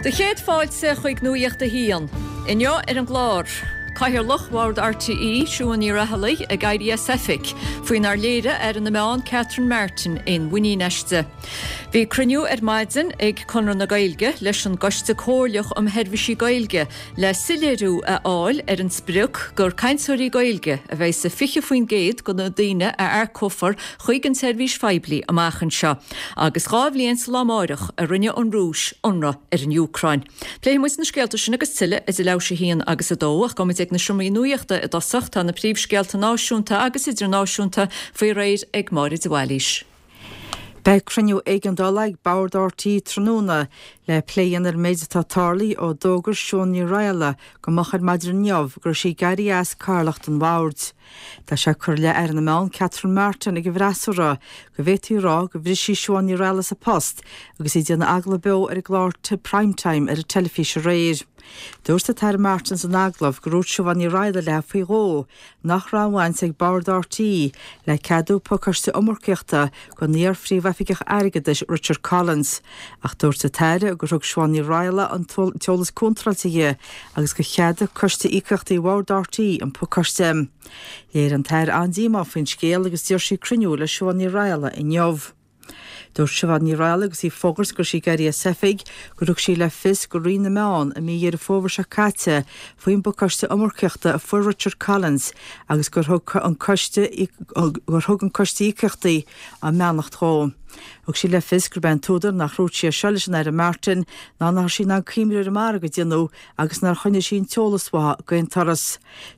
Do chéad fáilte chuig Nuacht a hAon. Inniu ar an gclár, Cathaoirleach Bhord RTÉ, Siún Ní Raghallaigh, ag éirí as oifig, faoinar léirigh Aire na Meán Catherine Martin aon mhuinín aisti. Bhí cruinniú ar maidin ag Conradh na Gaeilge leis an gCoiste Comhairleach um Sheirbhísí Gaeilge le soiléiriú a fháil ar an sprioc gur cainteoirí Gaeilge a bheidh sa 20% de na daoine a earcófar chuig an tseirbhís phoiblí amach anseo, agus 2 bhliain sa lá amáireach a rinne an Rúis ionradh ar an Úcráin. Pléifidh muid na scéalta sin agus tuilleadh idir leathuair théis 1 agus 2, ach gabhfaidh muid ag na seomraí nuachta i dtosach, tá na príomhscéalta náisiúnta agus idirnáisiúnta faoi réir ag Máire de Bhailís. Beidh cruinniú éigeandála ag Bord RTÉ tráthnóna le plé a dhéanamh ar an méid atá tarlaithe ó d'fhógair Siún Ní Raghallaigh go moch ar maidin inniu go raibh sí ag éirí as cathaoirleacht an bhoird. Tá sé curtha i leith Aire na Meán Catherine Martin ag an bhfreasúra go bhféadfaí a rá gur bhris sí Siobhán Ní Raghallaigh as a post agus í ag déanamh agallamh beo ar an gclár Prime Time ar an teilifís aréir. Dúirt an tAire Martin san agallamh gur dhúirt Siobhán Ní Raghallaigh léi faoi dhó nach raibh aon bhaint ag Bord RTÉ le ceadú pacáiste iomarcaíochta don iar-Phríomhoifigeach Airgeadais Richard Collins, ach dúirt an tAire gur thug Siobhán Ní Raghallaigh an t-eolas contráilte di agus gur cheadaigh Coiste Íocaíochtaí Bhord RTÉ an pacáiste. Léirigh an tAire an-díomá faoin scéal agus d'iarr sí cruinniú le Siobhán Ní Raghallaigh inniu. Dúirt Siobhán Ní Raghallaigh agus í ag fógairt go raibh sí ag éirí as oifig gur thug sí le fios do Roinn na Meán i mí Dheireadh Fómhair seo caite faoin bpacáiste iomarcaíochta a fuair Richard Collins agus gur thug an Coiste gur thug an Coiste Íocaíochtaí a mbeannacht dhó. Thug sí le fios gurb é an t-údar nach ndúirt sí é seo leis an Aire Martin ná nach raibh sí in ann cuimhniú ar an margadh a déanadh agus nár choinnigh sí an t-eolas uaithi d'aon turas.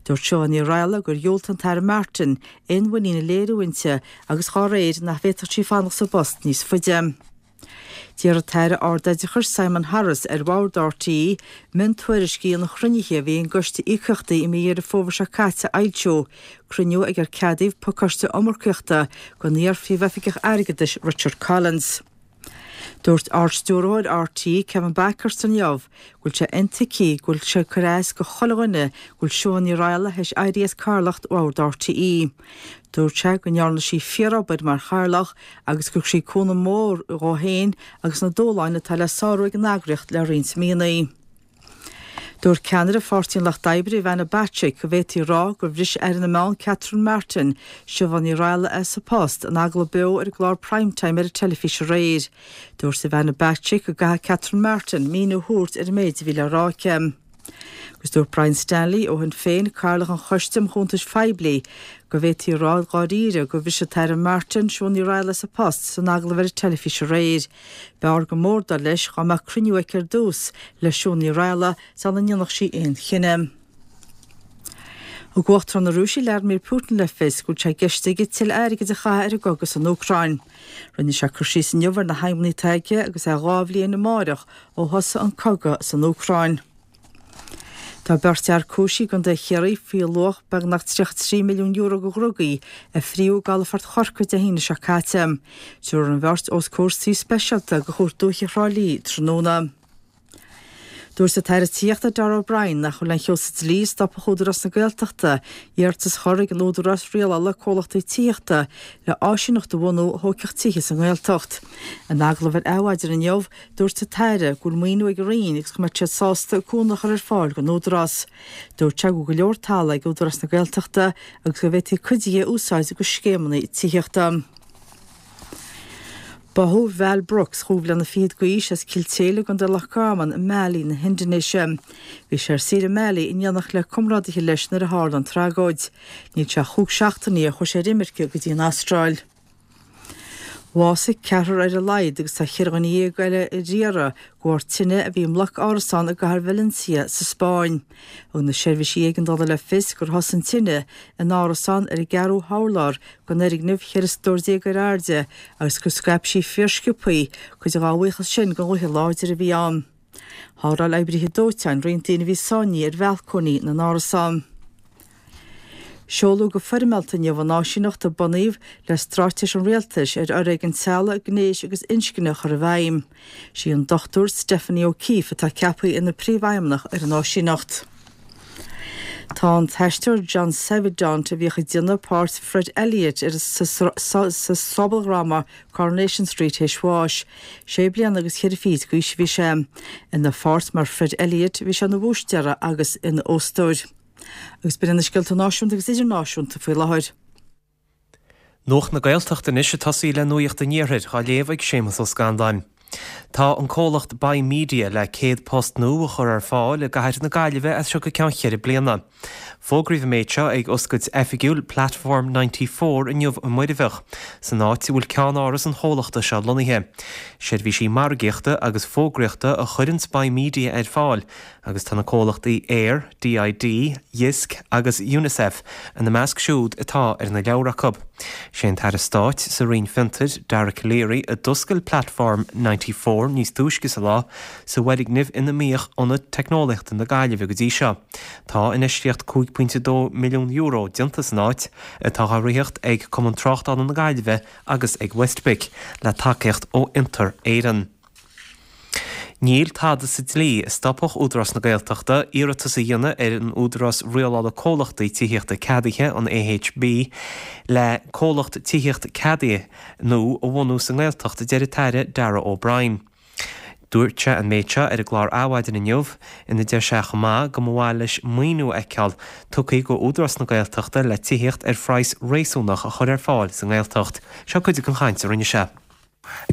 Dúirt Siobhán Ní Raghallaigh gur dhiúltaigh an tAire Martin aon mhuinín a léiriú inti agus dhá réir nach bhféadfadh sí fanacht sa bpost níos faide. D'iarr an tAire Ardoideachais Simon Harris ar Bhord RTÉ miontuairiscí an chruinnithe a bhí ag an gCoiste Íocaíochtaí i mí Dheireadh Fómhair seo caite a fhoilsiú, cruinniú ag ar ceadaíodh pacáiste iomarcaíochta don iar-Phríomhoifigeach Airgeadais Richard Collins. Dúirt Ard-Stiúrthóir RTÉ, Kevin Bakhurst inniu go bhfuil sé intuigthe go bhfuil sé ag cur as do chuile dhuine go bhfuil Siún Ní Raghallaigh théis éirí as cathaoirleacht Bhord RTÉ. Dúirt sé go ndearna sí fíoróbair mar chathaoirleach agus gur thug sí cúnamh mór dhó féin agus na dúshláin atá le sárú ag an eagraíocht le roinnt míonna. Dúirt ceannaire Pháirtí an Lucht Oibre, Ivana Bacik, go bhféadfaí a rá gur bhris Aire na Meán Catherine Martin Siobhán Ní Raghallaigh as a post in agallamh beo ar an gclár Prime Time ar an teilifís aréir. Dúirt Ivana Bacik go gcaithfidh Catherine Martin míniú a thabhairt ar an méid a bhí le rá aici. Agus dúirt Brian Stanley ó Shinn Féin, Cathaoirleach an Choiste um Chuntais Phoiblí, go bhféadfaí a rá dháiríre gur bhris an tAire Martin Siún Ní Raghallaigh as a post san agallamh ar an teilifís aréir. B'fhearr go mór, dar leis, dá mbeadh cruinniú aici ar dtús le Siún Ní Raghallaigh sula ndéanfadh sí aon chinneadh. Thug Uachtarán na Rúise Vladimir Putin le fios go bhfuil sé i gceist aige tuilleadh airgid a chaitheamh ar an gcogadh san Úcráin. Rinne sé cur síos inniu ar na haidhmeanna atá aige agus é 2 bhliain amáireach ó thosaigh an cogadh san Úcráin. Tá beirt fhear cúisithe i gContae Chiarraí faoi luach beagnach €33 milliún de dhrugaí a fríodh i gcalafort Chorcaí Dé hAoine seo caite. Tabharfar an bheirt os comhair suí speisialta de Chúirt Dúiche Thrá Lí tráthnóna. Dúirt an tAire Tithíochta Darragh O'Brien nach bhfuil aon cheo sa dlí a stopfadh Údarás na Gaeltachta iarratas a chur ag an Údarás Rialála Comhlachtaí Tithíochta le áisíneacht a bhunú a thógfadh tithe sa nGaeltacht. In agallamh ar Adhmhaidin inniu, Dúirt an tAire go bhfuil maoiniú ag an Roinn agus go mbeadh siad sásta cúnamh a chur ar fáil don Údarás. Dúirt sé go bhfuil go leor talaimh ag Údarás na Gaeltachta agus go bhféadfaí cuid de a úsáid do scéimeanna tithíochta. Báthadh Val Brooks, chúig bhliana fichead d'aois, as Cill tSéile i gContae Loch Garman i mBali na hIndinéise. Bhí sé ar saoire i mBali in éineacht le comrádaithe leis nuair a tharla an tragóid. Níl sé ach chúig seachtainí ó chuaigh sé ar imirce go dtí an Astráil. Bhásaigh ceathrar ar a laghad agus tá cheithre dhuine dhéag eile ar iarraidh de bharr tine a bhí i mbloc árasán i gcathair Valencia sa Spáinn. Thug na seirbhísí éigeandála le fios gur thosaigh an tine in árasán ar an gceathrú hurlár den fhoirgneamh 14 stór ar airde agus gur scaip sí fíorsciobthaí, cuid dá bhuíochas sin don ghaoth láidir a bhí ann. Sháráil oibrithe dóiteáin roinnt daoine a bhí sáinnithe ar bhalcóiní na n-árasán. Seoladh go foirmeálta inniu an áisíneacht a bunaíodh le straitéis an Rialtais ar fhoréigean teaghlaigh, gnéis agus inscne a chur i bhfeidhm. Sí an Dr Stephanie O'Keeffe atá ceaptha ina Príomhfheidhmeannach ar an áisíneacht. Tá an t-aisteoir John Savident, a bhíodh ag déanamh páirt Fred Elliott ar sa sobaldhráma Coronation Street théis bháis. Sé bliana agus cheithre fichid d'aois a bhí sé. Ina pháirt mar Fred Elliott bhí sé ina bhúistéara agus ina óstóir. Agus b'in iad na scéalta náisiúnta agus idirnáisiúnta faoi láthair. Nuacht na Gaeltachta anois ag tosaí le Nuacht an Iarthair, á léamh ag Séamus Ó Scanláin. Tá an comhlacht Buy Media le 100 post nua a chur ar fáil i gcathair na Gaillimhe as seo go ceann cheithre bliana. Fógraíodh an méid seo ag oscailt oifigiúil Platform 94 inniu i Muirbheach, san áit a bhfuil ceannáras an chomhlachta seo lonnaithe. Seirbhísí margaíochta agus fógraíochta a chuireanns Buy Media ar fáil agus tá na comhlachtaí Eir, DID, Jysk agus Unicef ina measc siúd atá ar na leabhra acu. Sé an tAire Stáit sa Roinn Fiontair, Dara Calleary, a d'oscail Platform 94 níos túisce sa lá, sa bhfoirgneamh ina mbíodh Ionad Teicneolaíochta na Gaillimhe go dtí seo. Tá infheistíocht €5.2 milliún déanta san áit, atá á ritheacht ag Cumann Tráchtála na Gaillimhe agus ag WestBIC, le tacaíocht ó Fhiontar Éireann. Níl tada sa dlí a stopfadh Údarás na Gaeltachta iarratas a dhéanamh ar an Údarás Rialála Comhlachtaí Tithíochta Ceadaithe, an AHB, le comhlacht tithíochta ceadaithe nua a bhunú sa nGaeltacht, a deir an tAire Darragh O'Brien. Dúirt sé an méid seo ar an gclár Adhmhaidin inniu, ina deir sé chomh maith go mba mhaith leis maoiniú a fheiceáil tugtha go Údarás na Gaeltachta le tithíocht ar phraghas réasúnach a chur ar fáil sa nGaeltacht. Seo cuid den chaint a rinne sé.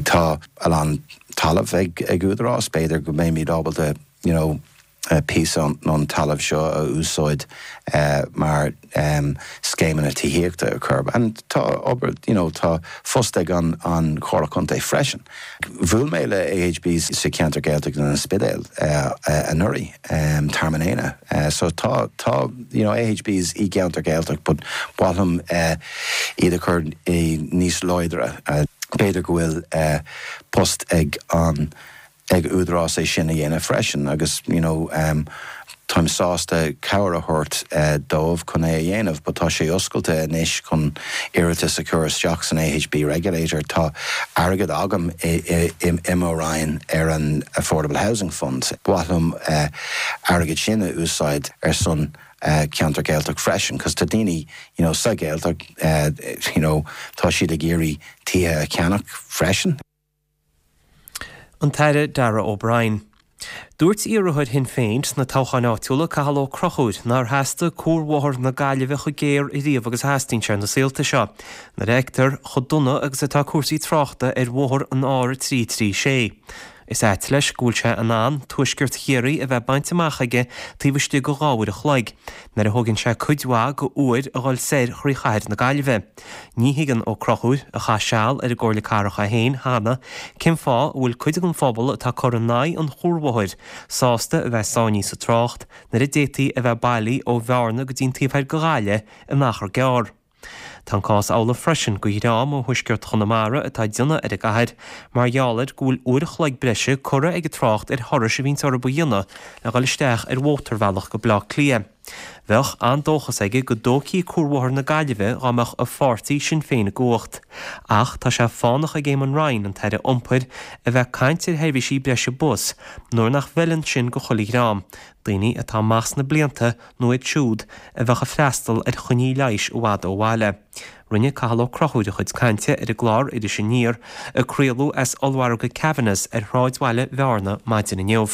Tá a lán talamh ag Údarás, b'fhéidir go mbeimid ábalta you know píosa ón talamh seo a úsáid mar scéimeanna tithíochta a chur and tá obair you know tá phost ag an an Chomhairle Contae freisin. Bhuail mé le AHB sa cheantar Gaeltachta in An Spidéal anuraidh, Tearmann Éanna so tá tá you know AHBs i gceantar Gaeltacht but ba mhaith liom iad a chur níos láidre. B'fhéidir go bhfuil post ag an ag Údarás é sin a dhéanamh freisin agus you know táim sásta cabhair a thabhairt dóibh chun é a dhéanamh but tá sé oscailte anois chun iarratas a chur isteach san AHB Regulator. Tá airgead agam i mo Roinn ar an Affordable Housing Fund. Ba mhaith liom airgead sin a úsáid ar son ceantar Gaeltacht freisin cos tá daoine you know sa Ghaeltacht you know tá siad ag iarraidh tithe a cheannach freisin. An tAire Darragh O'Brien. Dúirt iarrthóir Shinn Féin sna toghcháin áitiúla, Cathal Ó Conchúir, nár theastaigh cuarbhóthar na Gaillimhe chomh géar ariamh agus a theastaíonn sé na saolta seo, nuair a fheictear chomh dona agus atá cúrsaí tráchta ar bhóthar an R336. Is ait leis go bhfuil sé in ann tuaisceart Chiarraí a bheith bainte amach aige taobh istigh de dhá uair a chloig, nuair a thógann sé cuid mhaith go uair a dhul soir thrí chathair na Gaillimhe. Ní thuigeann Ó Conchúir, a chaith seal ar an gComhairle Cathrach é féin cheana, cén fáth a bhfuil cuid den phobal atá ag cur in aghaidh an chuarbhóthair sásta a bheith sáinnithe sa trácht nuair a d'fhéadfaí a bheith bailí ó Bhearna go dtí an taobh thoir de Ghaillimh in achar gearr. Tá an cás amhlaidh freisin go dhream ó thuaisceart Chonamara atá ag déanamh ar an gcathair mar gheall ar go bhfuil uair a chloig breise curtha ag an trácht ar thurais a bhíonns orthu a dhéanamh le dhul isteach ar mhótarbhealach go Bleá Cliath. Bheadh an-dóchas aige go dtógfaí Cuarbhóthar na Gaillimhe dá mbeadh a pháirtí Sinn Féin i gcumhacht. Ach tá sé fánach ag Eamon Ryan, an tAire Iompair, a bheith ag caint ar sheirbhísí breise bus nuair nach bhfeileann sin go chuile dhream, daoine atá amach sna blianta nó iad siúd a bheadh ag freastal ar choinní leighis i bhfad ó bhaile. Rinne Cathal Ó Conchúir a chuid cainte ar an gclár Iris Aniar a craoladh as ollmhargadh Kavanagh's ar shráidbhaile Bhearna maidin inniu.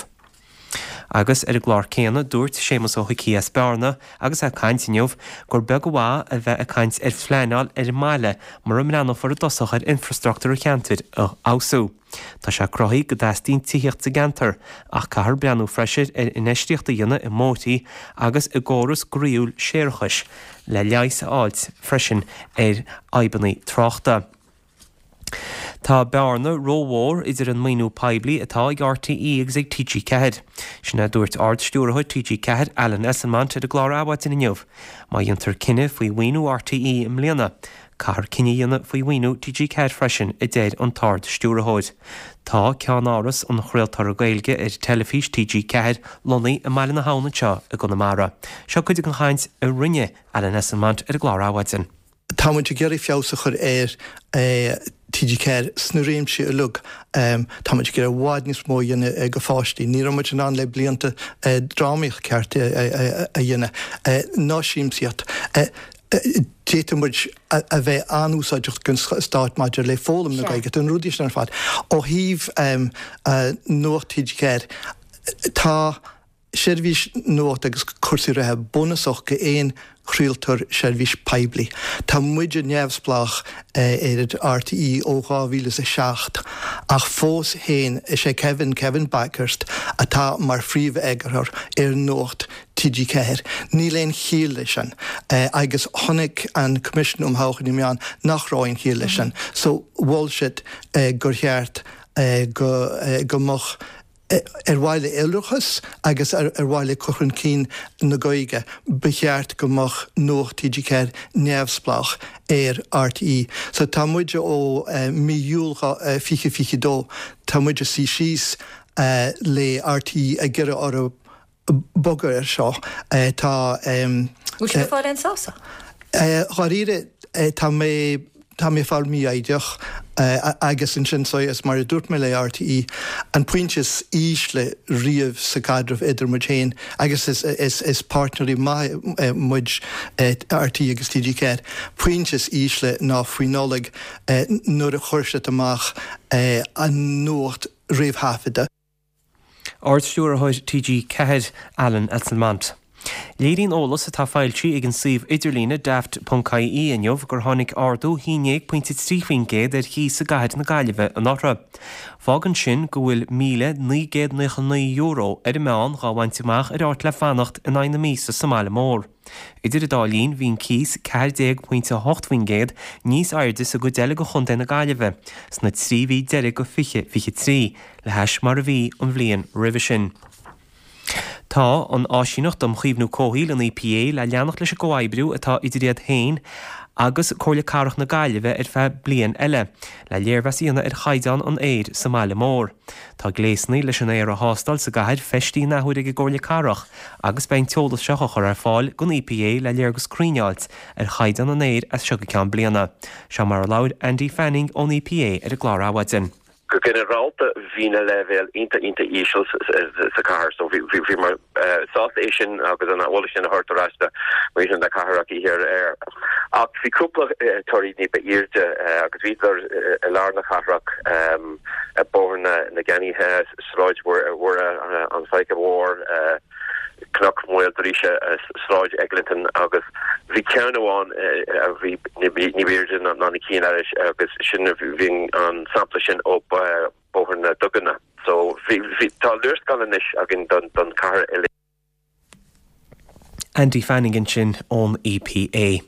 Agus ar an gclár céanna, dúirt Séamus Ó hIcí as Bearna, agus é ag caint inniu, gur beag an mhaith a bheith ag caint ar phleanáil ar an mbaile mura mbreathnófar i dtosach ar infreastruchtúr an cheantair a fheabhsú. Tá sé cruthaithe go dteastaíonn tithíocht sa gceantar, ach caithfear breathnú freisin ar infheistíocht a dhéanamh i mbóithrí agus i gcóras groíúil séarachais le leigheas a fháilt freisin ar fhadhbanna tráchta. Tá bearna rómhór idir an maoiniú poiblí atá ag RTÉ agus ag TG4. Sin é a dúirt Ard-Stiúrthóir TG4, Alan Esslemont ar an gclár Adhmhaidin inniu. Má dhéantar cinneadh faoi mhaoiniú RTÉ i mbliana, caithfear cinneadh a dhéanamh faoi mhaoiniú TG4 freisin, a deir an tArd-Stiúrthóir. Tá ceannáras an chraoltóra Gaeilge ar teilifís TG4 lonnaithe i mBaile na hAbhann anseo i gConamara. Seo cuid den chaint a rinne Alan Esslemont ar an gclár Adhmhaidin. Tá muid ag iarraidh feabhas a chur ar. TG4 sna réimsí uilig. Tá muid ag iarraidh i bhfad níos mó a dhéanamh go pháistí. Ní raibh muid in ann le blianta drámaíocht ceart a dhéanamh, ná siamsaíocht. D'fhéadfadh muid a bheith an-úsáideach don stát maidir le foghlaim na Gaeilge, na rudaí sin ar fad. Ó thaobh Nuacht TG4, tá seirbhís nuachta agus cúrsaí reatha bunúsach go aon chraoltóir seirbhís poiblí. Tá muide neamhspleách ar RTÉ ó 2007 ach fós féin is é Kevin, Kevin Bakhurst, atá mar phríomh-eagarthóir ar Nuacht TG4. Níl aon chiall leis sin agus chonaic an Coimisiún um Thodhchaí na Meán nach raibh aon chiall leis sin so mhol siad gur cheart go mbeadh Ar mhaithe le iolrachas agus ar mhaithe le cur chun cinn na Gaeilge, ba cheart go mbeadh Nuacht TG4 neamhspleách ar RTÉ. So tá muid ó mí Iúil 2022, tá muid ag suí síos le RTÉ ag iarraidh orthu bogadh ar seo. Tá. Bhfuil sibh ag fáil aon sásamh? Dháiríre, tá mé, tá mé ag fáil mífhoighdeach agus ansin so is mar a dúirt mé le RTÉ, an pointe is ísle riamh sa gcaidreamh idir muid féin agus is, is, is páirtnéirí maithe muid, RTÉ agus TG4, pointe is ísle ná faoi Nollaig nuair a chuir siad amach an nuacht réamhthaifeadta. Ard-Stiúrthóir TG4, Alan Esslemont. Léiríonn eolas atá foilsithe ag an suíomh idirlíne daft.ie inniu gur tháinig ardú 11.3% ar chíos i gcathair na Gaillimhe anuraidh. Fágann sin go bhfuil €1,999 ar an meán dhá bhaint amach ar áit le fanacht in aghaidh na míosa sa mbaile mór. Idir an dá linn, bhí an cíos 14.8% níos airde sa gcuid eile de chontae na Gaillimhe sna 3 mhí deiridh de 2023 le hais mar a bhí an bhliain roimhe sin. Tá an Áisíneacht um Chaomhnú Comhshaoil, an EPA, le leanacht leis an gcomhoibriú atá idir iad féin agus Comhairle Cathrach na Gaillimhe ar feadh bliain eile, le léirmheas a dhéanamh ar chaighdeán an aeir sa mbaile mór. Tá gléasanna leis an aer a thástáil sa gcathair feistithe an athuair ag an gComhairle Cathrach agus beidh an t-eolas seo á chur ar fáil don EPA le léargas cruinn a fháilt ar chaighdeán an aeir as seo go ceann bliana. Seo mar a labhair Andy Fanning ón EPA ar an gclár Adhmhaidin. Go ginearálta bhí na leibhéil iontach iontach íseal sa chathair so bhíomar sásta é sin agus an eolas sin a thabhairt ar ais do mhuintir na cathrach oíche aréir. Ach bhí cúpla torthaí ní ba airde agus bhíodar i lár na cathrach, Bóthar na gCeannaithe, Sráid Mhuire, an Faiche Mhór, Cnoc Mhaoil Drúise, Sráid Eglinton agus bhí ceann amháin a bhí ní ba airde ná na cinn eile agus sin bhí an sampla sin ó Bóthar na Duganna. So bhí tá léarscáil anois againn don chathair uilig. Andy Fanning ansin ón EPA.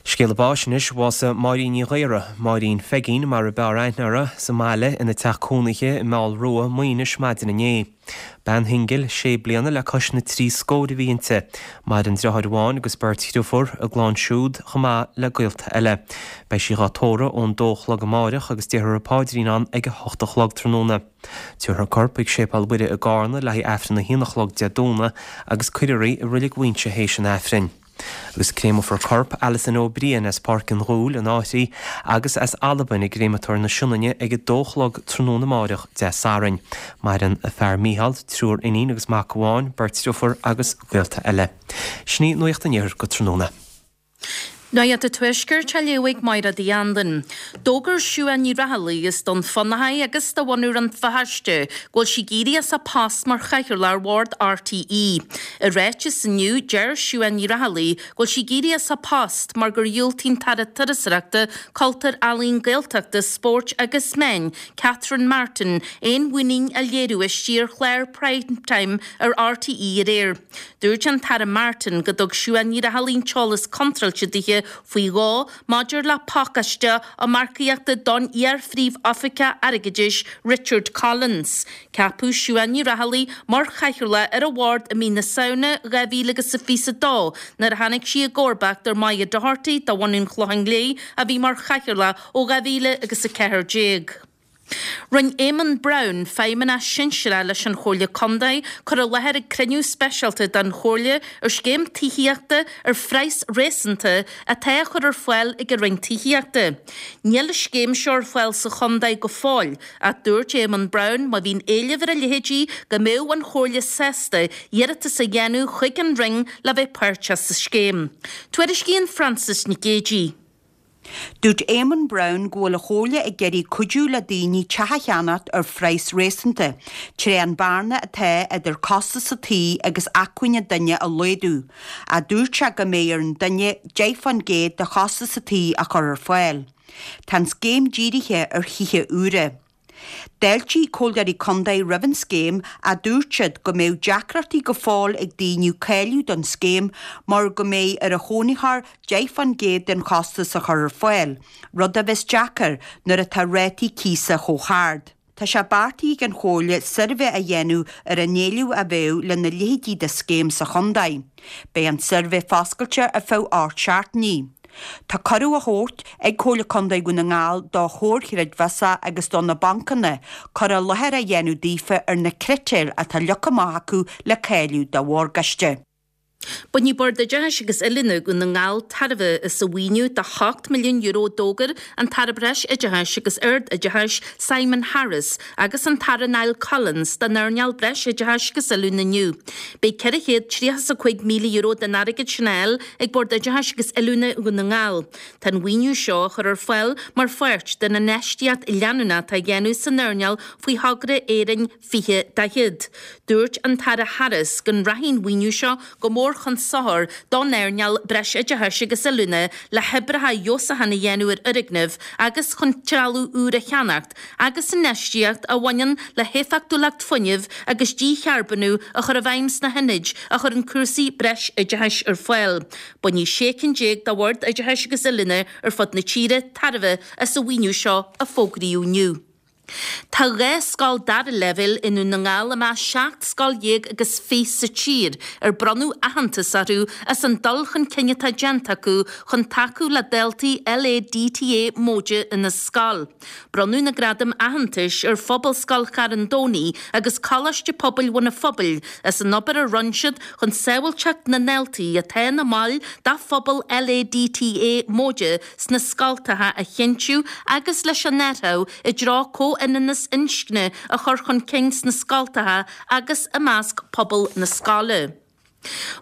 Scéala báis anois, bhásaigh Máirín Ní Ghaora, Máirín Pheigín mar a b'fhearr aithne uirthi, sa mbaile ina teach cónaithe i Meall Rua, Maínis maidin inné. Bean shingil, sé bliana le cois na dtrí scór a bhí inti. Maireann driotháir amháin agus beirt dhriofúr, a gclann siúd chomh maith le gaolta eile. Beidh sí dhá tórramh ón dó a chlog amáireach agus déarfar an paidrín ann ag a hocht a chlog tráthnóna. Tabharfar a corp chuig Séipéal Mhuire i gCarna le haghaidh Aifreann a haon a chlog Dé Domhnaigh agus cuirfear í i Reilig Mhuighinse théis an Aifrinn. Agus créamfar corp Alison Ó Briain as Páirc an Ghuail, an Fhairche, agus as Albain i gCréamatóir na Sionainne ag a dó a chlog tráthnóna amáireach Dé Sathairn. Maireann a fear Mícheál, triúr iníon agus mac amháin, beirt driofúr agus gaolta eile. Sin í Nuacht an Iarthair go tráthnóna. Nuacht an Tuaiscirt á léamh ag Máire Uí Anluain. D'fhógair Siuán Ní Raghallaigh as Dún Fionnachaidh agus de bhunadh Rann Feirste go bhfuil sí ag éirí as a post mar chathaoirleach ar bhord RTÉ. I ráiteas inniu, deir Siuán Ní Raghallaigh go bhfuil sí ag éirí as a post mar gur dhiúltaigh an tAire Turasóireachta, Cultúir, Ealaíon, Gaeltachta, Spóirt agus Meán, Catherine Martin, aon mhuinín a léiriú aisti ar chlár Prime Time ar RTÉ aréir. Dúirt an tAire Martin go dtug Siuán Ní Raghallaigh an t-eolas contráilte dithe faoi dhó maidir le pacáiste iomarcaíochta don iar-Phríomh-Oifigeach Airgeadais Richard Collins. Ceapadh Siuán Ní Raghallaigh mar chathaoirleach ar an bhord i mí na Samhna 2022 nuair a tháinig sí i gcomharbacht ar Moya Doherty de bhunadh an Chlocháin Léith a bhí mar chathaoirleach ó 2014. Rinne Éamonn Browne, Feidhmeannach Sinsearach leis an Chomhairle Contae, cur i láthair ag cruinniú speisialta den Chomhairle ar scéim tithíochta ar phraghas réasúnta atá á chur ar fáil ag an Roinn Tithíochta. Níl an scéim seo ar fáil sa chontae go fóill ach dúirt Éamonn Brown má bhíonn éileamh ar a leithéidí go mbeadh an Chomhairle sásta iarratas a dhéanamh chuig an Roinn le bheith páirteach sa scéim. Tuairiscíonn Frances Nic Géadaigh. Dúirt Éamonn Brown go bhfuil an Chomhairle ag iarraidh cuidiú le daoine teach a cheannacht ar phraghas réasúnta, tré an bearna atá idir costas a tí agus acmhainn an duine a laghdú, ach dúirt sé go mbeidh ar an duine 10% de chostas a tí a chur ar fáil. Tá an scéim dírithe ar thithe úra. D'fháiltigh Comhairleoirí Contae roimh an scéim ach dúirt siad go mbeadh deacrachtaí go fóill ag daoine cáiliú don scéim mar go mbeidh ar an chónaitheoir 10% den chostas a chur ar fáil, rud a bheas deacair nuair atá rátaí cíosa chomh hard. Tá sé beartaithe ag an Chomhairle suirbhé a dhéanamh ar an éileamh a bheadh lena leithéidí de scéim sa chontae. Beidh an suirbhé foscailte ar feadh 8 seachtainí. Tá cuireadh á thabhairt ag Comhairle Contae Dhún na nGall do chomhair chreidmheasa agus do na bancanna cur i láthair a dhéanamh daofa ar na critéir atá leagtha amach acu le cáiliú do mhorgáiste. Bainfidh Bord Oideachais agus Oiliúna Dhún na nGall tairbhe as an mhaoiniú de €8 milliún a d'fhógair an tAire Breis-Oideachais agus Ard-Oideachais Simon Harris agus an tAire Niall Collins don earnáil Breis-Oideachais agus Oiliúna inniu. Beidh €435,000 den airgead sin á fháil ag Bord Oideachais agus Oiliúna Dhún na nGall. Tá an mhaoiniú seo á chur ar fáil mar pháirt den infheistíocht leanúnach atá á dhéanamh san earnáil faoi thogra Éirinn 2040. Dúirt an tAire Harris go rachaidh an mhaoiniú seo go mór chun sochair don earnáil Breisoideachais agus Oiliúna le hoibreacha feabhsúcháin a dhéanamh ar fhoirgnimh agus chun trealamh úr a cheannacht agus infheistíocht a bhaineann le héifeachtúlacht fuinnimh agus dícharbónú a chur i bhfeidhm sna hionaid a chuireann cúrsaí breisoideachais ar fáil. Bainfidh 16 cinn de Bhoird Oideachais agus Oiliúna ar fud na tíre tairbhe as an mhaoiniú seo a fógraíodh inniu. Tá 12 scoil dara leibhéal i nDún na nGall i measc 17 scoil agus 20 sa tír ar bronnadh aitheantas orthu as an dul chun cinn atá déanta acu chun tacú le daltaí LADTA móide ina scoil. Bronnadh na gradaim aitheantais ar Phobalscoil Charn Domhnaigh agus Coláiste Pobail Bhun an Phobail as an obair a rinne siad chun sábháilteacht na ndaltaí atá ina mbaill de phobal LADTA móide sna scoltacha a chinntiú agus leis an athrú i dtreo comhionannas inscne a chur chun cinn sna scoltacha agus i measc pobal na scoile.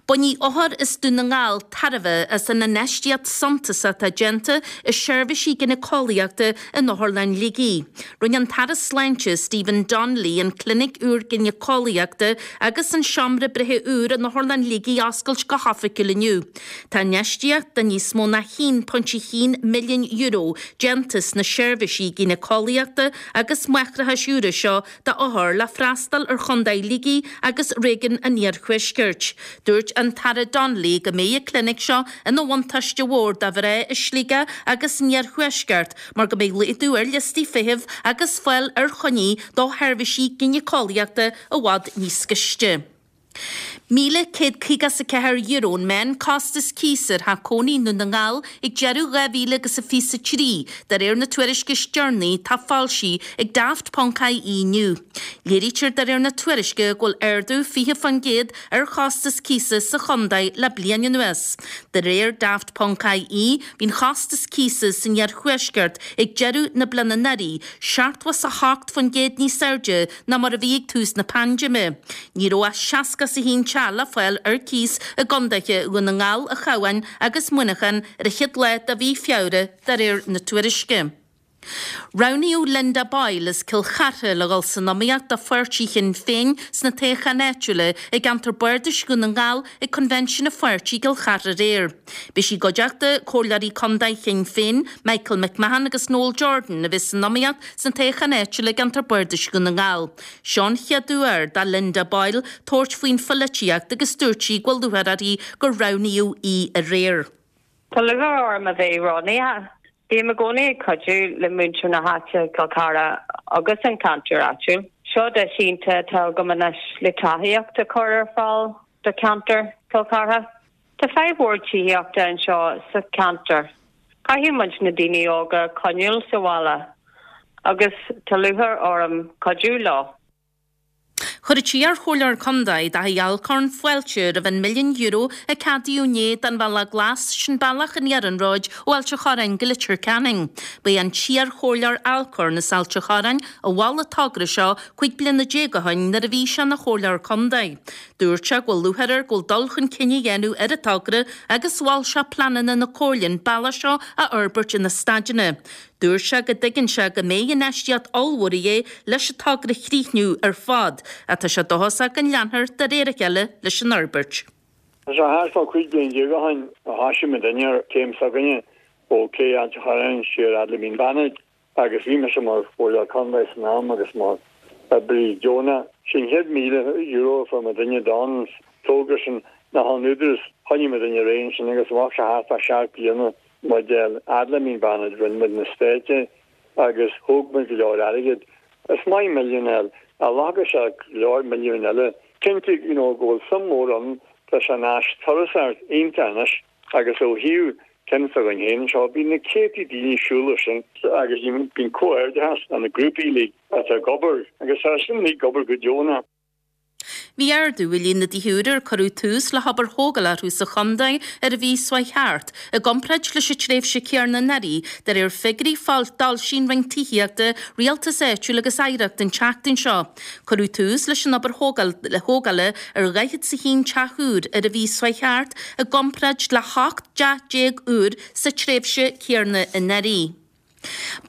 Bainfidh othair as Dún na nGall tairbhe as an infheistíocht suntasach atá déanta i seirbhísí gineaceolaíochta in Otharlann Shligigh. Rinne an tAire Sláinte Stephen Donnelly an clinic úr gineaceolaíochta agus an seomra breithe úr in Otharlann Shligigh a oscailt go hoifigiúil inniu. Tá infheistíocht de níos mó ná €1.1 milliún déanta sna seirbhísí gineaceolaíochta agus máithreachais úra seo d'othair le freastal ar Chontae Shligigh agus réigiún an Iarthuaiscirt. Dúirt an tAire Donnelly go mbeidh an clinic seo ina bhuntáiste mhór do mhná i Sligeach agus san Iarthuaisceart mar go mbeidh laghdú ar liostaí feithimh agus fáil ar choinní do sheirbhísí gineaceolaíochta i bhfad níos gaiste. €1,154 an meán-costas cíosa ar theach cónaí i nDún na nGall ag deireadh 2000 agus a 23, de réir na tuairisce is deireanaí atá foilsithe ag Daft Ponc IE inniu. Léirítear de réir na tuairisce go bhfuil ardú 20% ar chostas cíosa sa chontae le bliain anuas. De réir Daft Ponc IE, bhí an chostas cíosa san iarthuaisceart ag deireadh na bliana anuraidh 78% níos airde ná mar a bhí ag tús na paindéime. Ní raibh ach 61 teach le fáil ar cíos i gcontaetha Dhún na nGall, an Chabháin agus Muineachán ar an chéad lá de mhí Feabhra, de réir na tuairisce. Roghnaíodh Linda Boyle as Cill Chartha le dhul san iomaíocht do pháirtí Shinn Féin sna toghcháin áitiúla i gceantar Bardais Dhún na nGall ag Coinbhinsiún an pháirtí i gCill Chartha aréir. Beidh sí i gcuideachta Comhairleoirí Contae Shinn Féin, Michael McMahon agus Noel Jordan, a bheas san iomaíocht sna toghcháin áitiúla i gceantar Bardais Dhún na nGall. Seo an chéad uair do Linda Boyle tabhairt faoin pholaitíocht agus dúirt sí go bhfuil lúcháir uirthi gur roghnaíodh í aréir. Tá lúcháir orm a bheith roghnaithe. Bím i gcónaí ag cuidiú le muintir na háite, Cill Chartha agus an ceantar áitiúil. Seo deis iontach atá agam anois le tacaíocht a chur ar fáil do cheantar Chill Chartha. Tá fadhb mhór tithíochta anseo sa cheantar. Caithfidh muid na daoine óga a choinneáil sa bhaile agus tá lúcháir orm cuidiú leo. Chuir an t-iar-chomhairleoir contae, Daithí Alcorn, fáilte roimh an milliún euro a ceadaíodh inné don Bhealach Glas, sin bealach an iarnróid ó Ailt an Chorráin go Leitir Ceanainn. Ba é an t-iar-chomhairleoir Alcorn as Ailt an Chorráin a mhol an togra seo 15 bliana ó shin nuair a bhí sé ina chomhairleoir contae. Dúirt sé go bhfuil lúcháir air go bhfuil dul chun cinn á dhéanamh ar an togra agus mhol sé pleananna na Comhairle an bealach seo a fhorbairt ina staideanna. Dúirt sé go dtuigeann sé go mbeidh infheistíocht ollmhór a dhíth leis an togra a chríochnú ar fad ach tá sé dóchasach go leanfar de réir a chéile leis an fhorbairt. Tá sé thart fá 15 bliain ó shin a thoisigh muidinne ar chéim s'againne ó Cé Ailt an Chorráin siar fhad le Mín Bannaid agus bhí mise mar Chomhairleoir Contae san am agus mar oibrí deonach. Sé an chéad €1,000 a fuair muidinne don togra sin ná ón Údarás. Choinnigh muidinne ar aghaidh ansin agus bheadh sé thart fá sheacht bliana muid fhad le Mín Bannaid, rinne muid na stáití agus thóg muid go leor airgid. Is maith milliún a fháil, ach ghlacfadh sé go leor milliúin eile. Cinnte you know go bhfuil suim mhór ann, tá sé ina áis turasóireachta iontach anois agus ó thaobh ceann s'againn féin anseo, bíonn na céadtaí daoine ag siúl air sin agus bíonn comhghairdeachas do na grúpaí uilig atá ag obair agus tá sin uilig ag obair go deonach. Bhí ardú i líon na dtithe úra ar cuireadh tús le hobair thógála orthu sa chontae ar an mhí seo chuaigh thart, i gcomparáid leis an tréimhse chéanna anuraidh, de réir figiúirí a d'fhoilsigh an Roinn Tithíochta, Rialtais Áitiúil agus Oidhreachta an tseachtain seo. Cuireadh tús leis an obair thógála ar 41 teach úr ar an mhí seo chuaigh thart, i gcomparáid le 18 dteach úr sa tréimhse chéanna anuraidh.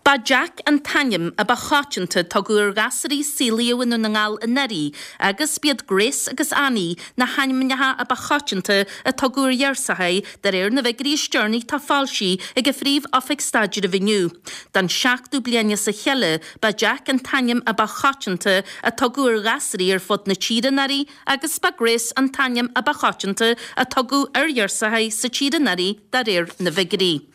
Ba Jack an t-ainm a ba choitianta a tugadh ar ghasúraí a saolaíodh i nDún na nGall anuraidh agus b'iad Grace agus Annie na hainmneacha a ba choitianta a tugadh ar ghirseachaí de réir na bhfigiúirí is deireanaí atá foilsithe ag an Phríomh-Oifig Staidrimh inniu. Don seachtú bliain as a chéile ba Jack an t-ainm a ba choitianta a tugadh ar ghasúraí ar fud na tíre anuraidh agus ba Grace an t-ainm a ba choitianta a tugadh ar ghirseachaí sa tír anuraidh de réir na bhfigiúirí.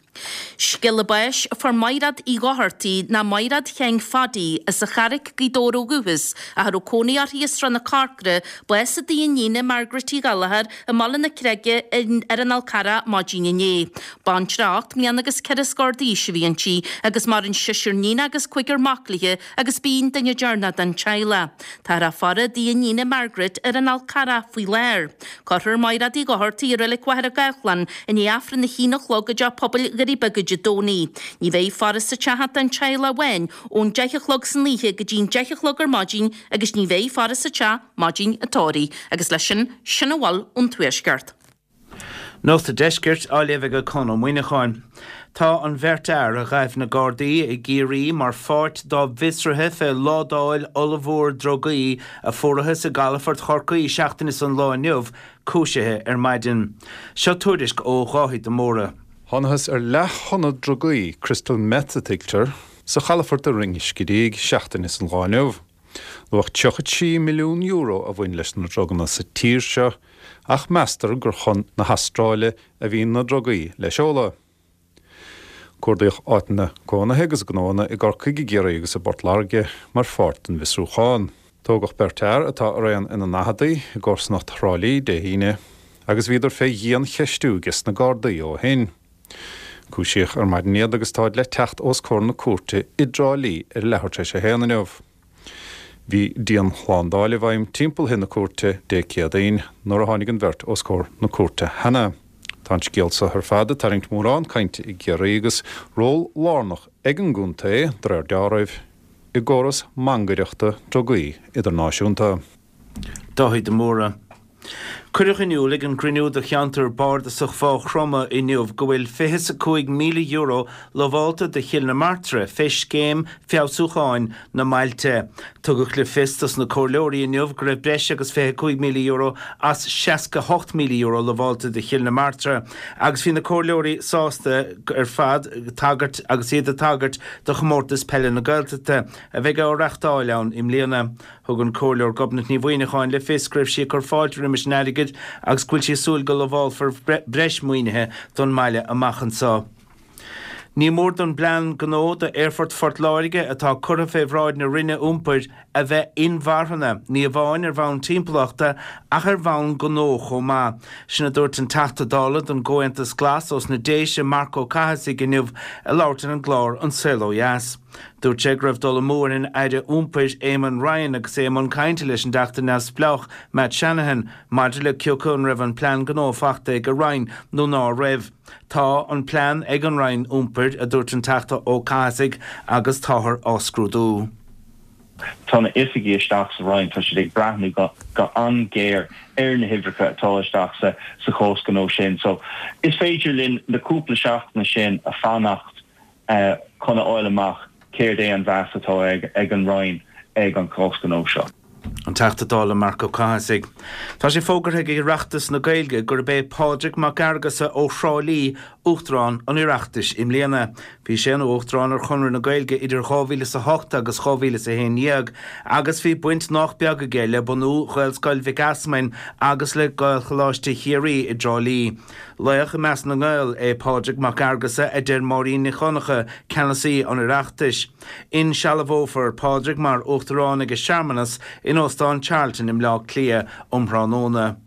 Scéala báis a fuair Maighreád Uí Dhochartaigh ná Maighreád Sheáin Phaidí as an Charraic, Gaoth Dobhair ó dhúchas, ach a raibh cónaí uirthi i Srath na Corcra, bás i dtigh a iníne Margaret Uí Ghallchóir i mBaile na Creige ar an Fhál Carrach maidin inné. Baintreach 8 mbliana agus ceithre scór d'aois a bhí inti agus maireann seisear níon agus cúigear mac léi agus b'í an duine deireanach den teaghlach. Táthar á faire i dtigh a iníne Margaret ar an Fhál Carrach faoi láthair. Cuirfear Maighreád Uí Dhochartaigh i Reilig Mhachaire Gathlán i ndiaidh Aifreann a haon a chlog i dTeach Pobail Dhoirí Beaga Dé Domhnaigh. Ní bheidh faire sa teach ach don teaghlach amháin ón deich a chlog san oíche go dtí'n deich a chlog ar maidin agus ní bheidh faire sa teach maidin an tórraimh. Agus leis sin, sin a bhfuil ón Tuaisceart. Nuacht an Deiscirt á léamh ag Conn Ó Muíneacháin. Tá an bheirt fhear a ghaibh na Gardaí i gCiarraí mar pháirt dá bhfiosruithe fé ládáil ollmhór drugaí a fuarathas i gcalafort Chorcaí seachtain is an lá inniu cúisithe ar maidin. Seo tuairisc ó Dháithí de Mórdha. Thánathas ar leath-thonna drugaí, crystal meth a tuigtear, sa chalafort i Rinn Scidígh seachtain is an lá inniu. Luach €33 milliún a bhain leis na druganna sa tír seo ach meastar gur chun na hAstráile a bhí na drugaí le seoladh. Cuardaíodh áiteanna cónaithe agus gnóanna i gCorcaigh, i gCiarraí agus i bPort Láirge mar pháirt den bhfiosrúchán. Tógadh beirt fhear, atá araon ina ndaicheadaí, i gcomharsanacht Thrá Lí Dé hAoine agus bhíodar fé dhian-cheistiú ages na Gardaí ó shin. Cúisíodh ar maidin iad agus táid le teacht os comhair na cúirte i dTrá Lí ar a leathuair tar éis a haon inniu. Bhí dianshlándáil i bhfeidhm timpeall thigh na cúirte Dé Céadaoin nuair a tháinig an bheirt os comhair na cúirte cheana. Tá an scéal so ar fad ag tarraingt mórán cainte i gCiarraí agus ról lárnach ag an gcontae, de réir deáraimh, i gcóras mangaireachta drugaí idirnáisiúnta. Dáithí de Mórdha. Cuireadh in iúl ag an gcruinniú do cheantar bardasach Mhaigh Chromtha inniu go bhfuil €25,000 lamhálta do Chill na Martra fé scéim feabhsúcháin na mbailte. Tugadh le fios dos na comhairleoirí inniu go raibh breis agus €25,000 as €68,000 lamhálta do Chill na Martra agus bhí na comhairleoirí sásta ar fad tagairt agus iad ag tagairt do Chomórtas Peile na Gaeltachta a bheidh á reachtáil ann i mbliana. Thug an Comhairleoir Gobnait Ní Mhuineacháin le fios go raibh sí ag cur fáilte roimis an airgead agus go bhfuil sí ag súil go lamhálfar breis maoinithe don mbaile amach anseo. Ní mór don bplean gnó d'Aerfort Phort Láirge atá curtha fé bhráid na Roinne Iompair a bheith inmharthana, ní amháin ar bhonn timpeallachta ach ar bhonn gnó chomh maith. Sin a dúirt an Teachta Dála don gComhaontas Glas ós na Déise, Marc Ó Cathasaigh inniu ag labhairt ar an gclár An Saol Ó Dheas. Dúirt sé go raibh dul amú ar an Aire Iompair Éamon Ryan agus é i mbun cainte leis an dTeachta neamhspleách Matt Shanahan maidir le cioca an raibh an plean gnó fachta ag a Roinn nó ná raibh. Tá an plean ag an Roinn Iompair, a dúirt an Teachta Ó Cathasaigh, agus táthar á scrúdú. Tá na oifigigh isteach sa Roinn, tá siad ag breathnú go an-ghéar ar na huimhreacha atá isteach sa chás gnó sin. So is féidir linn na cúpla seachtaine sin a fanacht chun a fháil amach céard é an mheas atá ag an Roinn ag an chás gnó seo. An Teachta Dála Marc Ó Cathasaigh. Tá sé fógartha ag Oireachtas na Gaeilge gurb é Pádraig Mac Fhearghusa ó Thrá Lí Uachtarán an Oireachtais i mbliana. Bhí sé ina Uachtarán ar Chonradh na Gaeilge idir 2008 agus 2011 agus bhí baint nách beag aige le bunú Ghaelscoil Mhic Easmainn agus le Gaelcholáiste Chiarraí i dTrá Lí. Laoch i measc na nGael é Pádraig Mac Fhearghusa a deir Máirín Nic Dhonncha, ceannasaí an Oireachtais. Insealbhófar Pádraig mar Uachtarán ag searmanas in Óstán Charlton i mBleá Cliath um thráthnóna.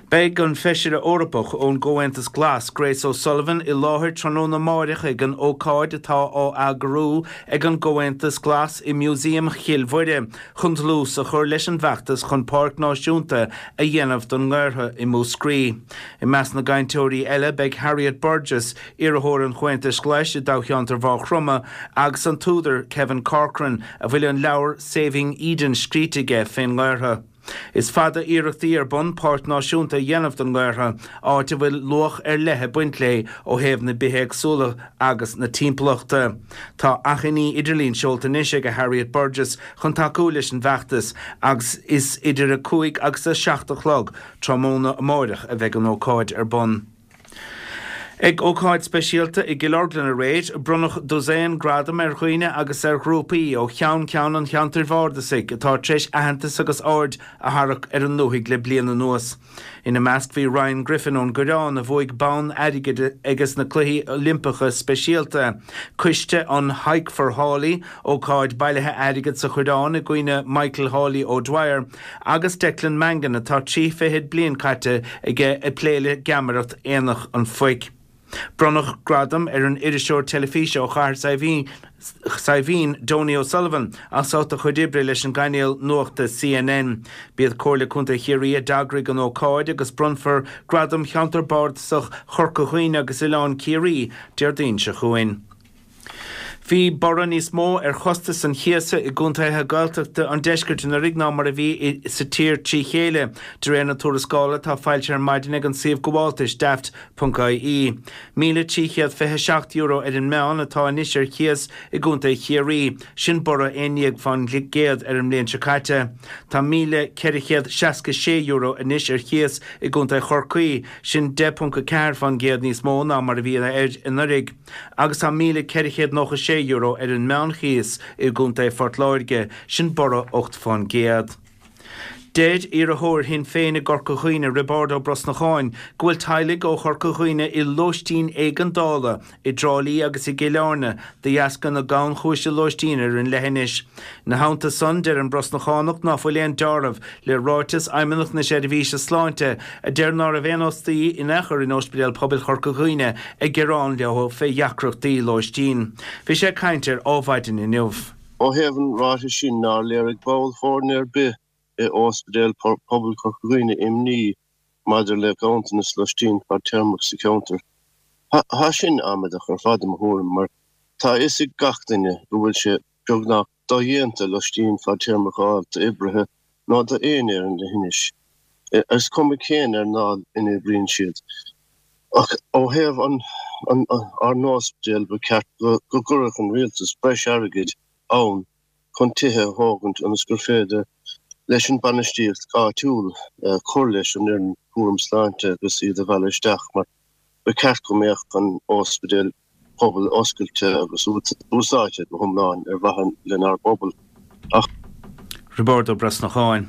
Beidh an Feisire Eorpach ón gComhaontas Glas, Grace O'Sullivan, i láthair tráthnóna amáireach ag an ócáid atá á eagrú ag an gComhaontas Glas i Músaem Chill Mhuire chun dlús a chur leis an bhfeachtas chun Páirc Náisiúnta a dhéanamh don nGaorthadh i Múscraí. I measc na gcainteoirí eile beidh Harriet Burgess, iarrthóir an Chomhaontais Ghlais i dtoghcheantar Mhaigh Chromtha, agus an t-údar Kevin Corcoran, a bhfuil an leabhar Saving Eden scríte aige fén nGaorthadh. Is fada iarrachtaí ar bun páirc náisiúnta a dhéanamh don nGaorthadh, áit a bhfuil luach ar leith ag baint léi ó thaobh na bithéagsúlachta agus na timpeallachta. Tá achainí idirlín seolta anois ag Harriet Burgess chun tacú leis an bhfeachtas agus is idir 5 agus 7 a chlog tráthnóna amáireach a bheidh an ócáid ar bun. Ag ócáid speisialta i gCill Orglan aréir, bronnadh dosaen gradam ar dhaoine agus ar ghrúpaí ó cheann ceann an cheantair bhardasaigh atá tar éis aitheantas agus aird a tharrac ar an ndúthaigh le bliain anuas. Ina measc bhí Ryan Griffin ón gCoireán a bhuaigh bonn airgid ages na Cluichí Oilimpeacha Speisialta, coiste an Hike for Hawley, ócáid bailithe airgid sa Choireán i gcuimhne Michael Hawley O'Dwyer, Agus Declan Mangan atá trí fichid bliain caite aige ag plé le geamaireacht Aonach an Phoic. Bronnadh gradam ar an iriseoir teilifíse ó Chathair Saidhbhín, Donie O'Sullivan, as ucht a chuid oibre leis an gcainéal nuachta CNN. B'iad Comhairle Contae Chiarraí a d'eagraigh an ócáid agus bronnfar Gradam Cheantar Bardasach Chorca Dhuibhne agus Oileán Ciarraí Déardaoin seo chugainn. Bhí borradh níos mó ar chostas an chíosa i gcontaetha Gaeltachta an deiscirt anuraidh ná mar a bhí sa tír trí chéile, de réir na tuarascála atá foilsithe ar maidin ag an suíomh gabháltais Daft. ie. €1,327 ar an meán atá anois ar chíos i gcontae Chiarraí, sin borradh 11% ar an mbliain seo caite. Tá €1,466 anois ar chíos i gcontae Chorcaí, sin 10.4% níos mó ná mar a bhí air anuraidh. agus tá €1,496 ar an meánchíos i gContae Phort Láirge, sin borradh 8%. Deir iarrthóir Shinn Féin i gCorca Dhuibhne, Roibeárd Ó Brosnacháin, go bhfuil teaghlaigh ó Chorca Dhuibhne i lóistín éigeandála i dTrá Lí agus i gCill Airne de dheasca na gannchúise lóistín ar an leithinis. Ina theannta san, deir an Brosnachánach ná fuil aon deáramh le ráiteas Fheidhmeannacht na Seirbhíse Sláinte a deir ná raibh aon fhostaí in aon chor in Ospidéal Pobail Chorca Dhuibhne ag gearán leo fé dheacrachtaí lóistín. Bhí sé ag caint ar Ádhmhaidin inniu. Ó thaobh an ráitis sin nár léirigh ball foirne ar bith i Ospidéal Pobail Chorca Dhuibhne imní maidir le ganntanas loistín fadtéarmach sa cheantar. Tá sin amaideach ar fad i mo thuairim mar tá a fhios ag gach duine go bhfuil sé beagnach dodhéanta loistín fadtéarmach a fháil d'oibrithe ná d'éinne ar an leithinis, is cuma cén earnáil ina oibríonn siad. Ach ó thaobh ár n-ospidéal, ba cheart go gcuirfeadh an rialtas breis airgid ann chun tithe a thógaint ionas gur féidir leis an bainistíocht áitiúil cur leis an fhoireann cúram sláinte agus iad a mhealladh isteach mar ba cheart go mbeadh an ospidéal pobail oscailte agus úsáidte go hiomlán ar mhaithe lenár bpobal. Ach. Roibeárd Ó Brosnacháin.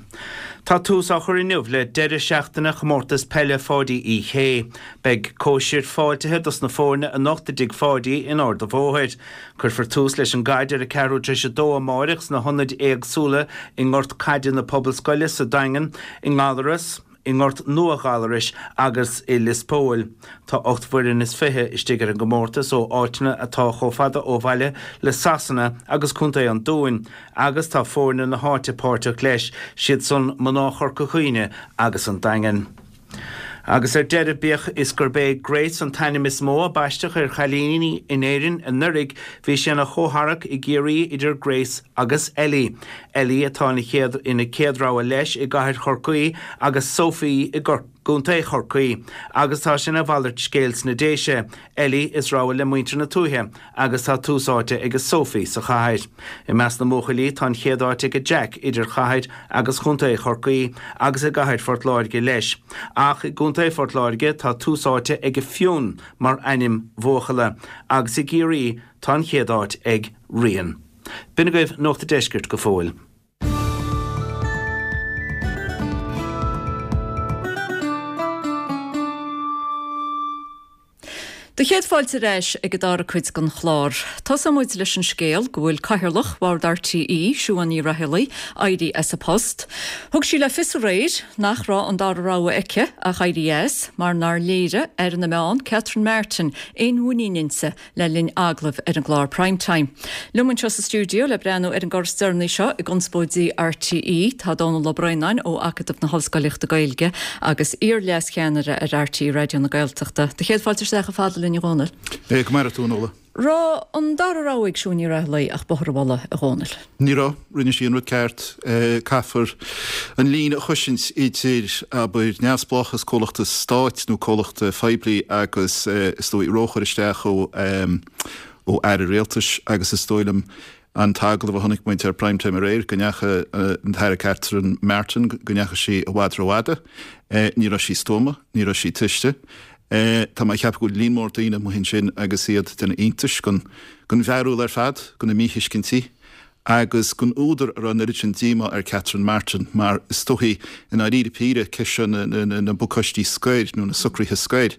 Tá tús á chur inniu le deireadh seachtaine Chomórtas Peile Pháidí Uí Shé. Beidh cóisir fáiltithe dos na foirne anocht i dTigh Pháidí in Ard a' Bhóthair. Cuirfear tús leis an gcaid ar a ceathrú tar éis a dó amáireach sna hionaid éagsúla i nGort Caide na Pobalscoile sa Daingean, i nGallaras, i nGort Nua Ghallarais agus i Lios Póil. Tá 8 bhfoireann is 20 istigh ar an gcomórtas ó áiteanna atá chomh fada ó bhaile le Sasana agus Contae an Dúin agus tá foirne na háite páirteach leis, siad san mná Chorca Dhuibhne agus an Daingean. Agus ar deireadh, bíodh is gurb é Grace an t-ainm is mó a baisteadh ar chailíní in Éirinn anuraidh, bhí sé ina chomhtharrac i gCiarraí idir Grace agus Ellie. Ellie atá ina chéad ina céad rogha leis i gcathair Chorcaí agus Sophie i gContae Chorcaí agus tá sé ina mhalairt scéil sna Déise, Ellie is rogha le muintir na tuaithe agus tá tús áite ag Sophie sa chathair. I measc na mbuachaillí tá an chéad áit ag Jack idir chathair agus chontae Chorcaí agus i gcathair Phort Láirge leis. Ach i gContae Phort Láirge tá tús áite ag Fionn mar ainm bhuachalla agus i gCiarraí tá an chéad áit ag Rian. B'in agaibh Nuacht an Deiscirt go fóill. Do chéad fáilte ar ais ag an dara cuid den chlár. Tosóidh muid leis an scéal go bhfuil Cathaoirleach Bhord RTÉ, Siún Ní Raghallaigh, éirithe as a post. Thug sí le fios aréir nach raibh an dara rogha aici ach éirí as mar nár léirigh Aire na Meán, Catherine Martin, aon mhuinín inti le linn agallaimh ar an gclár Prime Time. Liom anseo sa stiúideo le breathnú ar an gcor is deireanaí seo i gconspóidí RTÉ tá Dónall Ó Braonáin ó Acadamh na hOllscolaíochta Gaeilge agus iar-leascheannaire ar RTÉ Raidió na Gaeltachta. Do chéad fáilte isteach chomh fada linn a Dhónaill. Go maire tú, a Nuala. Raibh an dara rogha ag Siún Ní Raghallaigh ach bóthar a mhullaigh, a Dhónaill? Ní raibh. Rinne sí an rud ceart. Caithfear an líne a chosaint idir, abair, neamhspleáchas comhlachta stáit nó comhlachta phoiblí agus, is dóigh, róchur isteach ó ó aire rialtais agus is dóigh liom an t-agallamh a chonaic muid ar Prime Time aréir go ndeachaigh an tAire Catherine Martin, go ndeachaigh sí i bhfad rófhada. Ní raibh sí stuama, ní raibh sí tuiste. Tá mé ag ceapadh go bhfuil líon mór daoine amuigh ansin agus iad ag déanamh iontais den bharúil ar fad, de na míthuiscintí agus den údar a raibh an oiread sin díomá ar Catherine Martin mar is dóichí i ndáiríre píre ceist seo na bpacáistí scoir nó na socruithe scoir,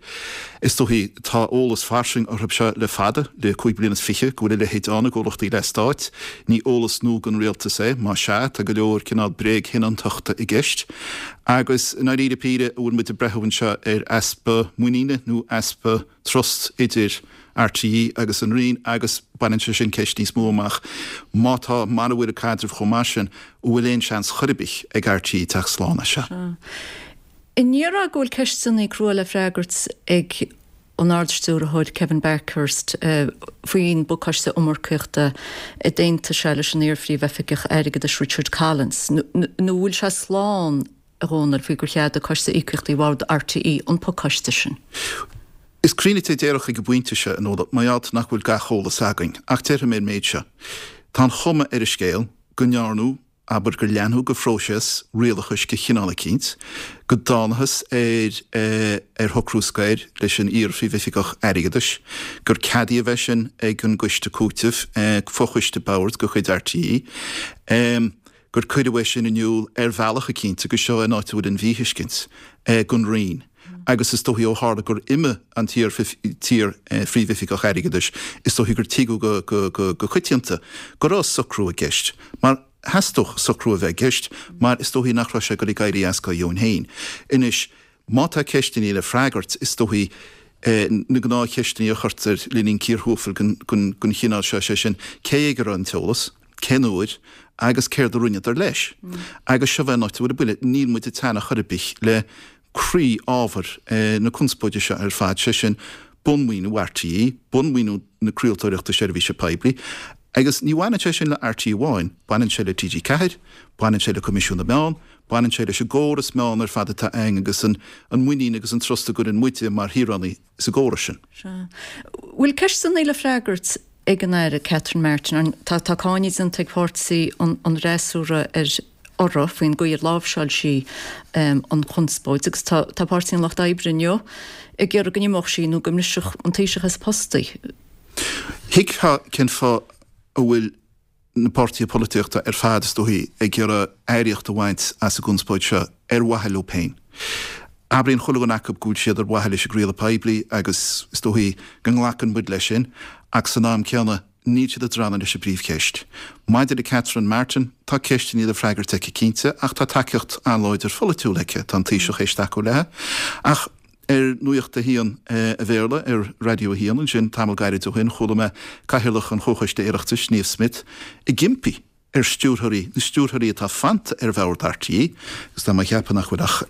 is dóichí tá eolas fairsing orthu seo le fada, le 25 bliana, go bhfuil a leithéid ann i gcomhlachtaí leathstáit. Ní eolas nua don rialtas é, más ea, tá go leor cineál bréagshoineantachta i gceist. Agus i ndáiríre píre, an bhfuil muid ag breathú anseo ar easpa muiníne nó easpa trust idir RTÉ agus an Roinn agus baineann sé sin ceist níos mó amach, má tá, mara bhfuil an caidreamh chomh maith sin, an bhfuil aon seans chor ar bith ag RTÉ teacht slán as seo? Sea. An ndéarfá go bhfuil ceisteanna crua le freagairt ag an Ard-Stiúrthóir Kevin Bakhurst faoin bpacáiste iomarcaíochta a d'aontaigh sé leis an iar-Phríomh-Oifigeach Airgeadais Richard Collins, nó an bhfuil sé slán, a Dhónaill, faoi gur cheadaigh Coiste Íocaíochtaí Bhord RTÉ an pacáiste sin? Is cruinne a déarfadh ag an bpointe seo, a Nuala, mar gheall nach bhfuil gach eolas againn, ach déarfaidh mé an méid seo. Tá an chuma ar an scéal go ndearnadh abair gur leanadh de phróiseas rialachais de chineál eicínt, go dtánathas ar ar shocrú scoir leis an iar-Phríomhoifigeach Airgeadais, gur ceadaíodh é sin ag an gCoiste Cúitimh, fochoiste boird de chuid RTÉ, gur cuireadh é sin in iúl ar bhealach eicínt agus seo an áit a bhfuil an mhíthuiscint, don Roinn. Agus is dóichí ó tharla gur imigh an t-iar-Phríomhoifigeach Airgeadais, is dóichí gur tuigeadh go coitianta go raibh socrú i gceist, mar theastódh socrú a bheith i gceist mar is dóichí nach raibh sé ag dul ag éirí as dá dheoin féin. Anois, má tá ceisteanna le freagairt, is dóichí na gnáthcheisteanna a chuirtear le linn cíor thuafail den chineál seo, sé sin, cé ag a raibh an t-eolas, cén uair agus céard a rinneadar leis? Agus seo é an áit a bhfuil an buille, níl muid ag teannadh chor ar bith le croí-ábhar na conspóide seo ar fad, sé sin, bunmhaoiniú RTÉ, bunmhaoiniú na craoltóireachta seirbhíse poiblí. Agus ní bhaineann sé sin le RTÉ amháin, baineann sé le TG4, baineann sé le Coimisiún na Meán, baineann sé leis an gcóras meán ar fad atá againn agus an muinín agus an trust a gcuireann muide mar shaoránaigh sa gcóras sin. Sea. Bhfuil ceisteanna le freagairt ag an Aire Catherine Martin? Tá tá cáineadh déanta ag páirtí an fhreasúra ar uirthi faoin gcaoi ar láimhseáil sí an chonspóid agus tá tá Páirtí an Lucht Oibre inniu ag iarraidh go n-imeodh sí nó go mbrisfeadh an Taoiseach as a post í. Thuigfeá cén fáth a bhfuil. na páirtithe polaitíochta ar fad, is dóichí, ag iarraidh earraíocht a bhaint as an gconspóid seo ar mhaithe leo féin. Abraíonn chuile dhuine acu go bhfuil siad ar mhaithe leis an gcraoladh poiblí agus is dóichí go nglacann muid leis sin ach san am céanna níl siad ag drannadh leis an bpríomhcheist. Maidir le Catherine Martin, tá ceisteanna le freagairt aici cinnte ach tá tacaíocht an-láidir pholaitiúil aici, tá an Taoiseach théis tacú léi. Ach ar Nuacht a hAon a Bhéarla ar Raidió a hAon ansin tamall gairid ó shin chuala mé Cathaoirleach an Chomhchoiste Oireachtais, Niamh Smyth, ag impí ar stiúrthóirí, na stiúrthóirí atá fanta ar bhord RTÉ, agus tá mé ag ceapadh nach bhfuil ach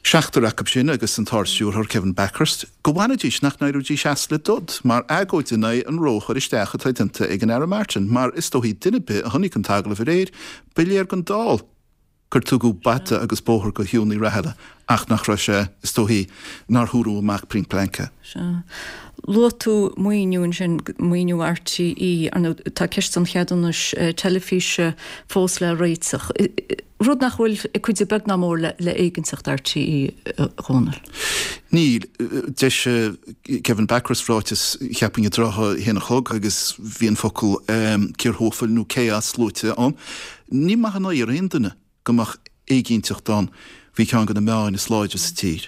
seachtar acu sin agus an tArd-Stiúrthóir Kevin Bakhurst, go bhfanfaidís, nach n-éireoidís as le dod, mar agóid in aghaidh an ró-chur isteach atá déanta ag an Aire Martin, mar is dóichí duine ar bith a chonaic an t-agallamh aréir, ba léir don dall gur tugadh bata agus bóthar do Shiún Ní Raghallaigh ach nach raibh sé, is dóichí, nár húradh amach pointe blank é. Sea. Luaigh tú maoiniú ansin, maoiniú RTÉ, ar ndóigh tá ceist an cheadúnais teilifíse fós le réiteach, rud nach bhfuil ag cuidiú beag ná mór le éiginnteacht RTÉ, a Dhónaill. Níl. D'eisigh Kevin Bakhurst ráiteas, cheapfainn, i dtrátha a haon a chlog agus bhí an focal cíor thuathail nó chaos luaite ann. Ní maith an oighear aon duine go mbeadh éiginnteacht ann faoi cheann de na meáin is láidre sa tír.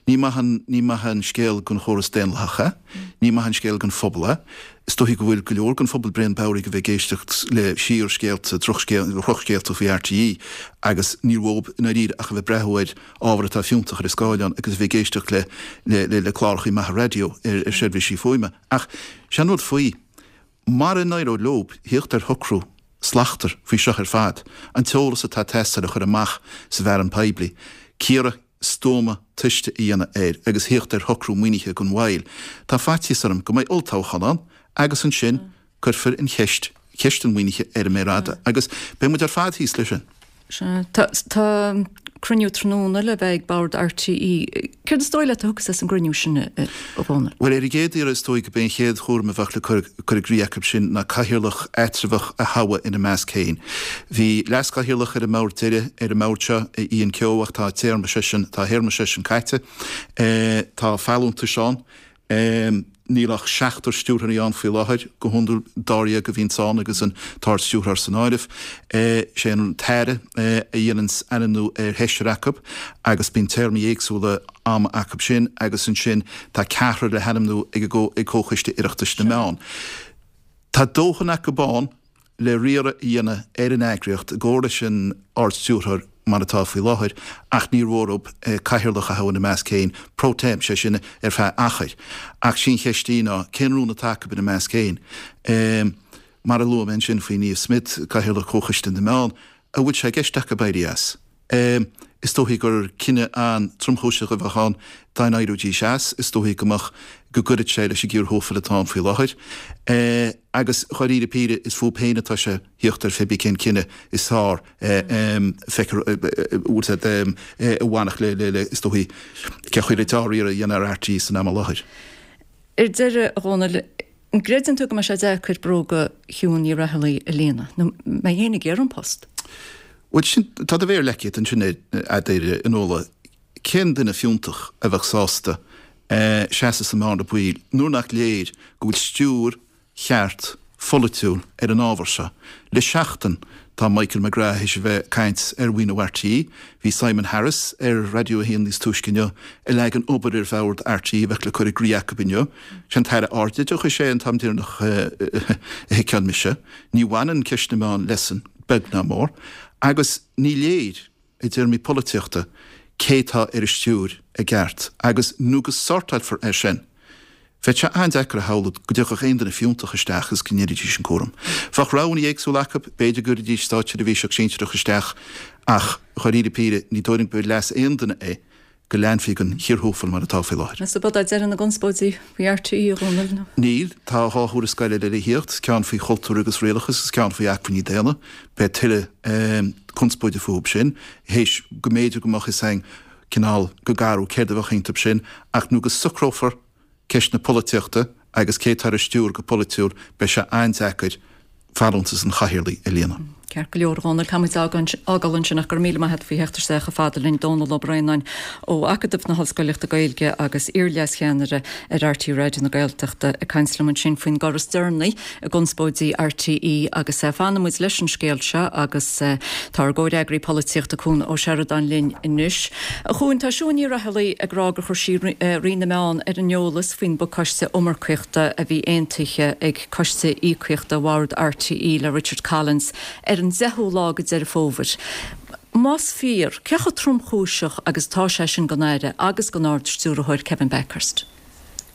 Ní maith an, ní maith an scéal don chóras daonlathach é. Ní maith an scéal don phobal é. Is dóichí go bhfuil go leor den phobal bréan bodhraithe a bheith ag éisteacht le síorscéalta, drochscéalta faoi RTÉ agus níl uathu i ndáiríre ach a bheith ag breathnú ar ábhar atá fiúntach ar an scáileán agus a bheith ag éisteacht le, le, le cláracha maithe raidió ar, ar seirbhísí fuaime. Ach sé an rud faoi, Mara n-éireoidh leob thíocht ar shocrú slachtmhar faoi seo ar fad, an t-eolas atá ag teastáil a chur amach sa bhfearann poiblí, cíoradh stuama tomhaiste a dhéanamh air agus thíocht ar shocrú maoinithe gan mhoill, tá faitíos orm go mbeidh olltoghchán ann agus ansin cuirfear an cheist, ceist an mhaoinithe ar an méar fhada agus beidh muid ar fad thíos leis sin. Sea. Tá cruinniú tráthnóna le bheith ag Bord RTÉ. Céard is dóigh leat a thiocfas as an gcruinniú sin, a Dhónaill? Bhuel, ar an gcéad iarraidh is dóigh go b'é an chéad chúram a bheadh le cur i gcrích acu sin ná cathaoirleach eatramhach a thoghadh ina measc féin. Bhí leaschathaoirleach ar an mbord deiridh ar an mbord seo, Ian Kehoe, ach tá téarma seisean, tá a théarma seisean caite. Tá folúntais ann. Níl ach seachtar stiúrthóirí ann faoi láthair, go hiondúil dáréag a bhíonns ann agus an tArd-Stiúrthóir san áireamh. Sé an tAire a dhéananns ainmniú ar sheisear acu agus bíonn téarmaí éagsúla ama acu sin agus ansin tá ceathrar le hainmniú ag ag Comhchoiste Oireachtais na Meán. Tá dóthain acu ann le riaradh a dhéanamh ar an eagraíocht i gcomhar leis an Ard-Stiúrthóir mar atá faoi láthair ach níor mhór dóibh cathaoirleach a thoghadh ina measc féin pro tem, sé sin ar feadh achair. Ach sí an cheist í ná cén rún atá acu ina measc féin? Mar a luaigh mé ansin faoi Niamh Smyth, Cathaoirleach Chomhchoiste na Meán, an bhfuil sé i gceist acu éirí as? Is dóichí gur cinneadh an-tromchúiseach a bheadh ann dá n-éireoidís as. Is dóichí go mbeadh, go gcuirfeadh sé leis an gcíor thuathail atá ann faoi láthair. Agus dháiríre píre, is fúthu féin atá sé thíocht ar phébí cén cinneadh is fearr feicfear bhfuil siad a bhainfeadh le, le, is dóichí, cén chaoi le dea-riaradh a dhéanamh ar RTÉ san am i láthair. Ar deireadh, a Dhónaill, An gcreideann tú go mbeidh sé deacair bróga Shiún Ní Raghallaigh a líonadh, nó an mbeidh éinne ag iarraidh an post? Bhuel, sin, tá do mhéar leagtha agat ansin air, a Fhionnuala. Cén duine fiúntach a bheadh sásta seasamh sa mbearna baoil nuair nach léir go bhfuil stiúir cheart pholaitiúil ar an ábhar seo? Le seachtain tá Michael McGrath théis a bheith ag caint ar mhaoiniú RTÉ. Bhí Simon Harris ar Raidió 1 níos túisce inniu ag leagan obair ar bhord RTÉ a bheadh le cur i gcrích acu inniu. Sé an tAire Ardoideachais é an t-am deireanach a sheiceáil mise. Ní bhaineann ceist na meán leisean, beag ná mór. Agus ní léir, i dtéarmaí polaitíochta, cé tá ar an stiúir i gceart. Agus nó go sortáilfear é sin, Bheadh sé an-deacair a shamhlú go dtiocfadh aon duine fiúntach isteach agus go ndéanfaidís an cúram. Bheadh roghanna éagsúla acu, b'fhéidir go gcuirfidís státseirbhíseach sinsearach isteach ach, dháiríre píre, ní dóigh liom gur leas aon duine é go leanfaí den chíor thuathail mar atá faoi láthair. Meas tú ab é deireadh na gconspóidí faoi RTÉ, a Dhónaill, nó? Níl. Tá 2 thuarascáil eile le thíocht, ceann faoi chultúr agus rialachas agus ceann faoi acmhainní daonna. Beidh tuilleadh conspóide fúthu sin, théis go mb'fhéidir go mbeadh fhios againn cineál go garbh céard a bheadh iontu sin, ach nó go socrófar ceist na polaitíochta agus cé atá ar an stiúir go polaitiúil, beidh sé an-deacair folúntas an chathaoirligh a líonadh. Ceart go leor, a Dhónaill, caithfidh muid a fhágáil ansin ach go raibh míle maith agat faoi theacht isteach chomh fada linn, Dónall Ó Braonáin ó Acadamh na hOllscoileachta Gaeilge agus iar-leascheannaire ar RTÉ Raidió na Gaeltachta ag caint liom ansin faoin gcor is deireanaí i gconspóidí RTÉ agus fanfaidh muid leis an scéal seo agus tá ár gcomhfhreagraí polaitíochta Cuan Ó Seireadáin linn anois. A Chuain, tá Siún Ní Raghallaigh ag rá gur chuir sí Roinn na Meán ar an eolas faoin bpacáiste iomarcaíochta a bhí aontaithe ag Coiste Íocaíochta Bhord RTÉ le Richard Collins ar an 10ú lá de Deireadh Fómhair. Más fíor, cé chomh tromchúiseach agus atá sé sin don Aire agus don Ard-Stiúrthóir Kevin Bakhurst?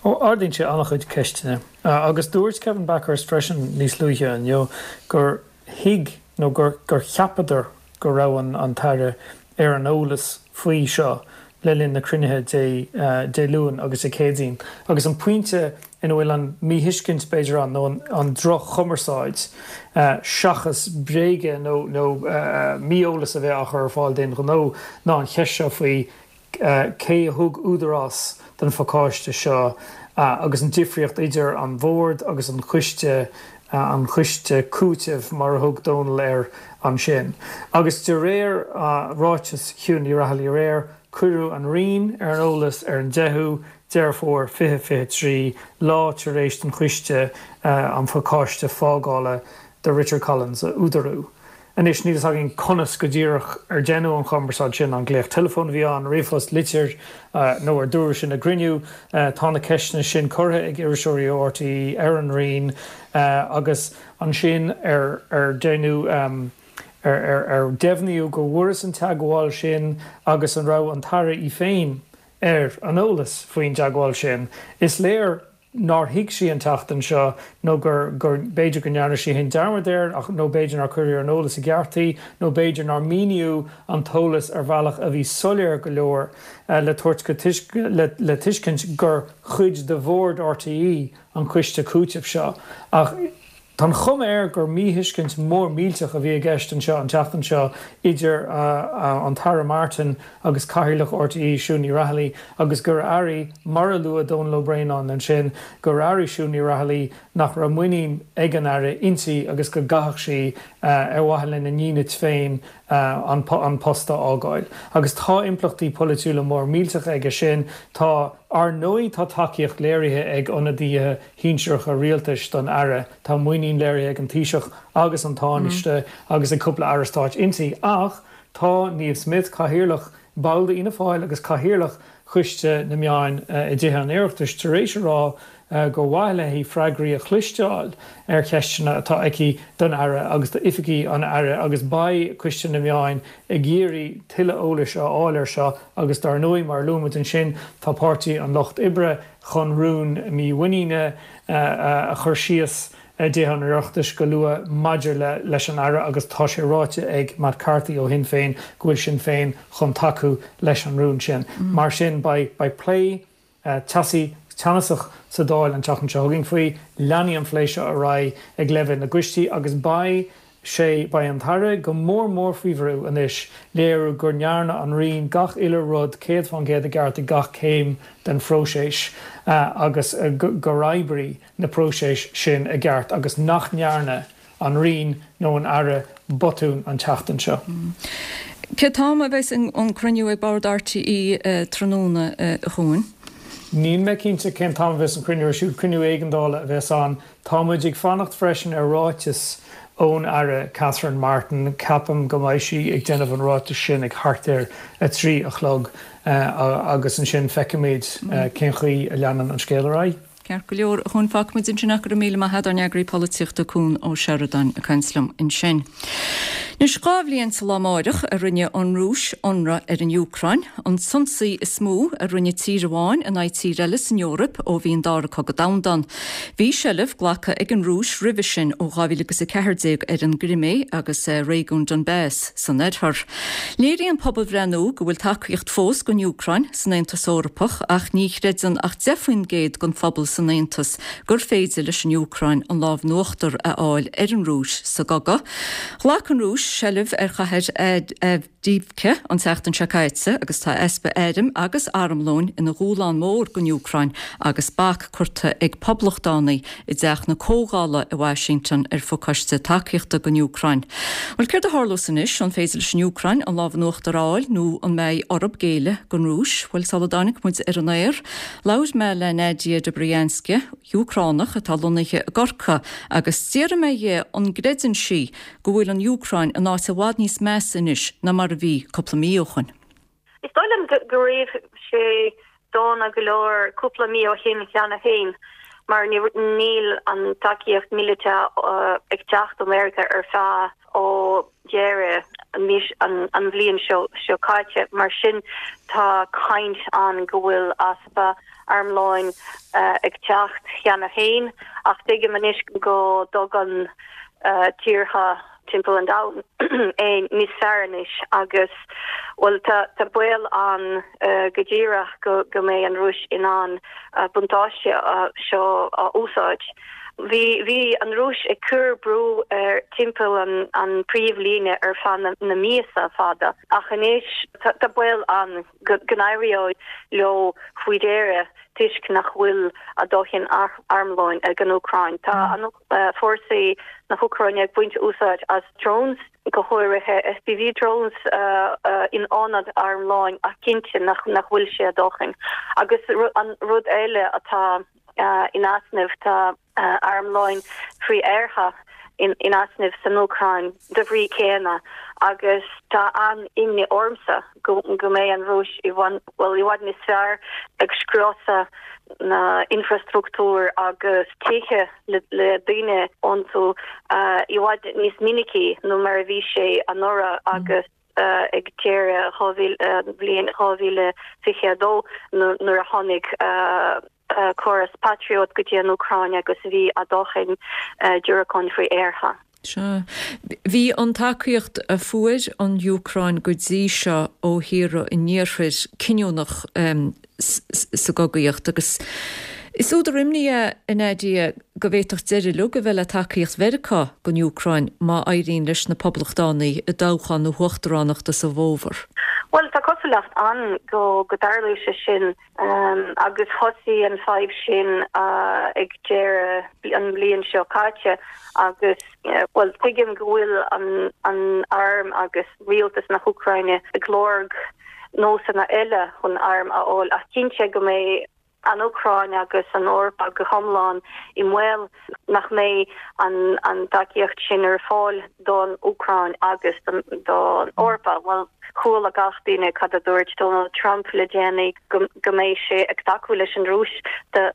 Ó, ardaíonn sé an-chuid ceisteanna. Agus dúirt Kevin Bakhurst freisin níos luaithe inniu gur thuig nó gur cheapadar go raibh an tAire ar an eolas faoi seo le linn na cruinnithe Dé Luain agus Dé Céadaoin. Agus an pointe ina bhfuil an míthuiscint, b'fhéidir, ann, nó an droch-chumarsáid, seachas bréaga nó mí-eolas a bheith á chur ar fáil d'aon ghnó, ná an cheist seo faoi cé a thug údarás don phacáiste seo agus an difríocht idir an Bhord agus an coiste, an coiste cúitimh mar a thug Dónal air ansin. Agus de réir ráiteas Shiún Ní Raghallaigh aréir, cuireadh an Roinn ar an eolas ar an 10ú Deireadh Fómhair 2023, lá tar éis don choiste an phacáiste fágála do Richard Collins a údarú. Anois, níl fhios againn conas go díreach ar deineadh an chumarsáid sin, an glaoch teileafóin a bhí ann, ríomhphost, litir, nó ar dúradh sin i gcruinniú. Tá na ceisteanna sin curtha ag iriseoirí ó RTÉ ar an Roinn agus ansin ar ar deineadh, ar deimhníodh go bhfuarthas an teagmháil sin agus an raibh an tAire í féin ar an eolas faoin dteagmháil sin. Is léir nár thuig sí an tseachtain seo nó gur, gur, b'fhéidir go ndearna sí féin dearmad air ach, nó b'fhéidir nár cuireadh ar an eolas i gceart í nó b'fhéidir nár míníodh an t-eolas ar bhealach a bhí soiléir go leor le tabhairt go, le, le tuiscint gur chuid de Bhord RTÉ an coiste cúitimh seo. Ach. Tá an chuma air gur míthuiscint mhór millteach a bhí i gceist anseo an tseachtain seo idir an tAire Martin agus Cathaoirleach RTÉ, Siún Ní Raghallaigh, agus gur airigh, mar a luaigh Dónal Ó Braonáin ansin, gur airigh Siún Ní Raghallaigh nach raibh muinín ag an Aire inti agus go gcaithfeadh sí, ar mhaithe lena ndínit féin, an post a fhágáil. Agus tá impleachtaí polaitiúla mór millteacha aige sin. Tá, ar ndóigh, tá tacaíocht léirithe ag ionadaithe shinsearacha rialtais don Aire. Tá muinín léirithe ag an Taoiseach agus an Tánaiste agus ag cúpla Aire Stáit inti ach tá Niamh Smyth, Cathaoirleach, ball d'Fhianna Fáil agus Cathaoirleach Choiste na Meáin i dTithe an Oireachtais tar éis a rá gur mhaith léi freagraí a chloisteáil ar cheisteanna atá aici don Aire agus d'oifigigh an Aire agus beidh Coiste na Meáin ag iarraidh tuilleadh eolais a fháil air seo agus dar ndóigh mar a luaigh muid ansin tá Páirtí an Lucht Oibre chun rún mímhuiníne a chur síos i dTithe an Oireachtais go luath maidir leis an Aire agus tá sé ráite ag Matt Carthy ó Shinn Féin go bhfuil Sinn Féin chun tacú leis an rún sin. Mar sin beidh plé teasaí, teannasach sa Dáil an tseachtain seo chugainn faoi. Leanfaidh an phlé seo ar aghaidh ag leibhéal na gcoistí agus beidh sé, beidh an tAire go mór mór faoi bhrú anois léiriú go ndearna an Roinn gach uile rud 100% i gceart ag gach céim den phróiseas agus gur oibrigh na próisis sin i gceart agus nach ndearna an Roinn nó an Aire botún an tseachtain seo. Cén t-am a bheas an cruinniú ag Bord RTÉ tráthnóna, a Chuain? Níl mé cinnte cén t-am a bheas an cruinniú ar siúl. Cruinniú éigeandála a bheas ann. Tá muid ag fanacht freisin ar ráiteas ón Aire Catherine Martin. Ceapaim go mbeidh sí ag déanamh an ráitis sin ag thart ar 3 a chlog agus ansin feicfimid cén chaoi a leanann an scéal ar aghaidh. Ceart go leor, a Chuain, fágfaidh muid ansin ach go raibh míle maith agat, ár n-eagraí polaitíochta Cuan Ó Seireadáin ag caint liom ansin. Anois, 2 bhliain sa lá amáireach a rinne an Rúis ionradh ar an Úcráin, an t-ionsaí is mó a rinne tír amháin in aghaidh tír eile san Eoraip ó bhí an Dara Cogadh Domhanda ann. Bhí seilbh glactha ag an Rúis roimhe sin ó 2014 ar an gCrimé agus réigiún Donbas san oirthear. Léiríonn pobalbhreith nua go bhfuil tacaíocht fós don Úcráin san Aontas Eorpach ach ní chreideann ach 10% den phobal san. san Aontas gur féidir leis an Úcráin an lámh in uachtar a fháil ar an Rúis sa gcogadh. Ghlac an Rúis seilbh ar chathair Avdiivka an tseachtain seo caite agus tá easpa airm agus armlóin ina dhúshlán mór don Úcráin agus bac curtha ag poblachtánaigh i dTeach na Comhdhála i Washington ar phacáiste tacaíochta don Úcráin. Bhuel, céard a tharlós anois? An féidir leis an Úcráin an lámh in uachtar a fháil nó an mbeidh orthu géilleadh don Rúis? Bhuel, sula dtáinig muid ar an aer, labhair mé le Nadia Dobrianska, Úcránach atá lonnaithe i gCorcaigh, agus d'fhiafraigh mé dhi an gcreideann sí go bhfuil an Úcráin in áit i bhfad níos measa anois ná mar a bhí cúpla mí ó shoin. Is dóigh liom go raibh sé dona go leor cúpla mí ó shin cheana féin mar níl an tacaíocht míleata ag teacht ó Meiriceá ar feadh ó dheireadh an bhliain seo caite. Mar sin tá caint ann go bhfuil easpa armlóin ag teacht cheana féin ach tuigim anois go dtugann tíortha timpeall an domhain é níos fearr anois agus, bhuel, tá baol ann go díreach go go mbeidh an Rúis in ann buntáiste seo a úsáid. Bhí bhí an Rúis ag cur brú ar timpeall an an príomhlíne ar feadh na na míosa fada ach anois tá baol ann go go n-éireoidh leo faoi dheireadh toisc nach bhfuil a dóthain armlóin ag an Úcráin. Tá an fórsaí na hÚcráine ag baint úsáid as drones, go háirithe FPV drones, in ionad armlóin ach cinnte nach bhfuil sé a dóthain. Agus an rud eile atá in easnamh, tá armlóin frith-aertha in easnamh san Úcráin de bhrí céanna agus tá an-imní ormsa go mbeidh an Rúis i bhfuil i bhfad níos fearr ag scriosadh na infrastruchtúr agus tithe le daoine iontu i bhfad níos minicí nó mar a bhí sé anuraidh agus ag deireadh bhliain 2022 nuair a tháinig córas Patriot go dtí an Úcráin agus bhí a dóthain diúracáin frith-aertha. Sea. Bhí an tacaíocht a fuair an Úcráin go dtí seo ó thíortha an Iarthair cinniúnach sa gcogaíocht agus is údar imní é, a Nadia, go bhféadfadh deireadh uilig a bheith le tacaíocht Mheiriceá don Úcráin má éiríonn leis na Poblachtánaigh i dtoghchán na huachtaránachta sa bhfómhar. Bhuel, tá cosúlacht ann go dtarlóidh sé sin. Agus thosaigh an fadhb sin ag deireadh an bhliain seo caite agus, bhuel, tuigim go bhfuil an arm agus rialtas na hÚcráine ag lorg nósanna eile chun airm a fháil ach cinnte go mbeidh an Úcráin agus an Eoraip go hiomlán i mbaol nach mbeidh an tacaíocht sin ar fáil don Úcráin agus don Eoraip. Bhuel, chuala gach duine cad a dúirt Donald Trump le déanaí, go mbeidh sé ag tacú leis an Rúis dá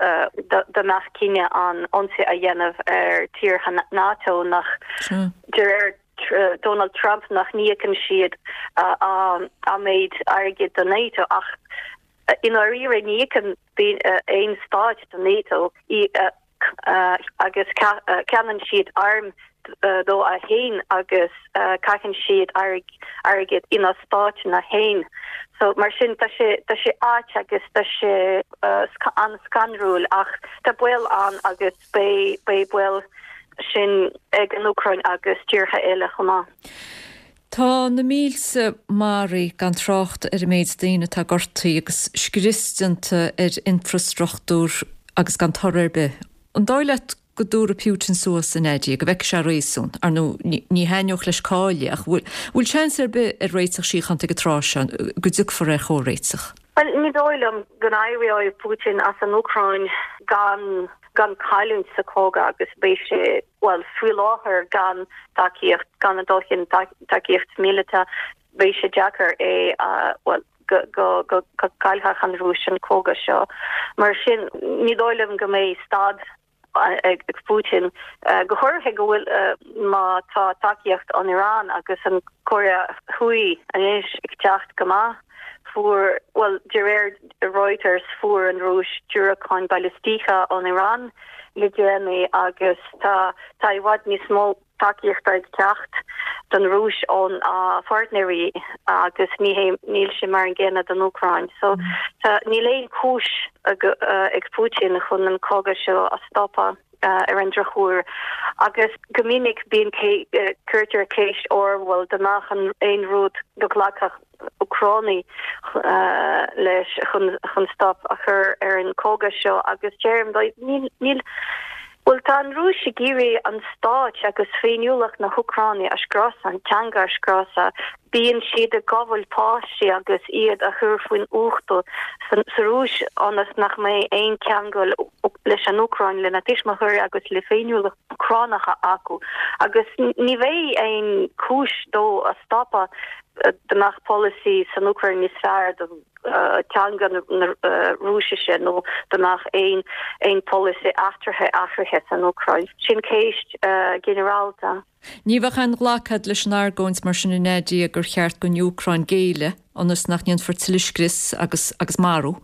mbeadh cinneadh ann ionsaí a dhéanamh ar tíortha NATO nach, de réir Donald Trump, nach n-íocann siad a méid airgid do NATO ach i ndáiríre ní íocann aon stáit do NATO. agus ceannaíonn siad airm dóibh féin agus caitheann siad airgead ina stáiteanna féin. So mar sin tá sé tá sé ait agus tá sé an-scanrúil ach tá baol ann agus beidh beidh baol sin ag an Úcráin agus tíortha eile chomh maith. Tá na mílte maraithe, gan trácht ar an méid daoine atá gortaithe agus scrios déanta ar infrastruchtúr agus gan toradh ar bith. An dóigh leat go dtabharfaidh Putin suas, a Nadia, go bhfeicfidh sé réasún? Ar ndóigh, ní thaitneodh leis cailleadh, ach bhfuil seans ar bith ar réiteach síochánta ag an tráth seo, go dtiocfar ar chomhréiteach? Bhuel, ní dóigh liom go n-éireoidh Putin as an Úcráin gan gan cailliúint sa chogadh agus beidh sé, bhuel, faoi láthair gan tacaíocht, gan a dóthain tacaíocht míleata, beidh sé deacair é a, bhuel, go, go, go, go gcaillfeadh an Rúis an cogadh seo. Mar sin, ní dóigh liom go mbeidh stad ag Putin, go háirithe go bhfuil, má tá tacaíocht ón Iran agus an Cóiré Thuaidh anois ag teacht go maith. Fuair, bhuel, de réir Reuters, fuair an Rúis diúracáin balaisteacha ón Iran le déanaí agus tá, tá i bhfad níos mó tacaíochta ag teacht. don Rúis ón a pháirtnéirí agus ní hé níl sé mar an gcéanna don Úcráin. So tá níl aon chúis ag Putin chun an cogadh seo a stopadh ar an drochuair agus go minic bíonn cuirtear ceist orm bhuel dá mbeadh an aon rud go nglacfadh Úcránaigh leis chun stop a chur ar an cogadh seo agus deirim dóibh níl níl bhuel tá an Rúis ag iarraidh an stáit agus féiniúlacht na hÚcráine a scriosadh, an teanga a scriosadh. Bíonn siad ag gabháil páistí agus iad a chur faoin uchtú sa Rúis ionas nach mbeidh aon cheangal leis an Úcráin, lena tuismitheoirí agus le féiniúlacht Úcránacha acu. Agus ní bheidh aon chúis dó a stopadh dá mbeadh polasaí san Úcráin níos fearr do teanga na Rúisise nó dá mbeadh aon aon polasaí eachtraithe athraithe san Úcráin. Sin ceist ginearálta. Ní bheadh aon ghlacadh agat leis an argóint mar sin a Nadia gur cheart don Úcráin géilleadh ionas nach ndéanfar tuilleadh scrios agus agus marú?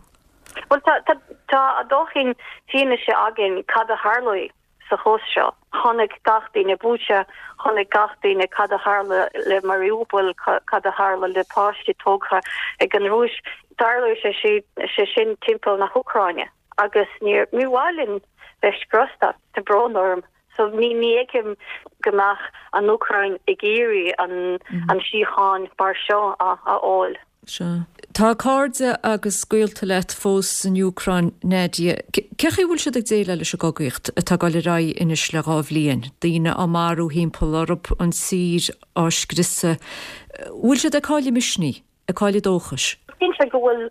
Bhuel tá tá tá a dóthain fianaise againn cad a tharlóidh. sa chás seo. Chonaic gach duine Bucha, chonaic gach duine cad a tharla le Mariupol, cad a tharla le páistí tógtha ag an Rúis. Tarlóidh sé sé sin timpeall na hÚcráine agus ní mhaith linn bheith scriosta, tá brón orm. So ní ní fheicim go mbeadh an Úcráin ag iarraidh an an síocháin mar seo a fháil. Sea. Tá cairde agus gaolta leat fós san Úcráin, Nadia. Cé chaoi a bhfuil siad ag déileáil leis an gcogaíocht atá ag dul ar aghaidh anois le 2 bhliain? Daoine á marú thimpeall orthu, an tír á scriosadh. Bhfuil siad ag cailleadh misnigh, ag cailleadh dóchais? Cinnte go bhfuil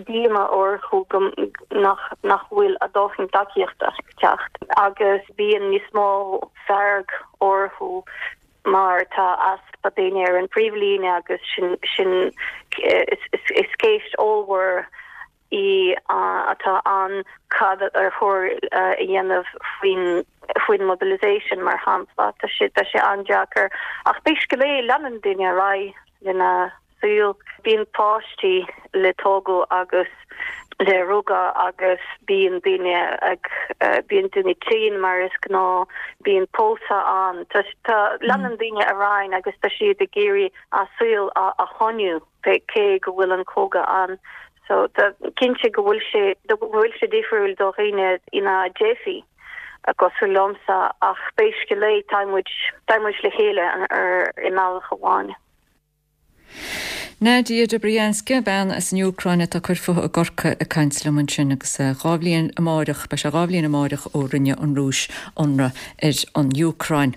díomá orthu go nach nach bhfuil a dóthain tacaíochta ag teacht agus bíonn níos mó fearg orthu mar tá easpa daoine ar an bpríomhlíne agus sin sin is ceist ollmhór í atá ann cad ar chóir a dhéanamh faoin faoin mobilisation mar shampla. Tá sé tá sé an-deacair ach pé scéal é leanann daoine ar aghaidh lena saol. Bíonn páistí le tógadh agus le rugadh agus bíonn daoine ag, bíonn daoine tinn mar is gnáth, bíonn pósadh ann. Tá, tá, leanann daoine ar aghaidh agus tá siad ag iarraidh a saol a, a choinniú cé go bhfuil an cogadh ann. So tá, cinnte go bhfuil sé, go bhfuil sé difriúil do dhaoine ina dteifigh cosúil liomsa ach pé scéal é tá muid, tá muid le chéile ar, i mbealach amháin. Nadia Dobrianska, bean as an Úcráin atá ag cur fúithi i gCorcaigh ag caint liom ansin agus 2 bhliain amáireach, beidh sé 2 bhliain amáireach ó rinne an Rúis ionradh ar an Úcráin.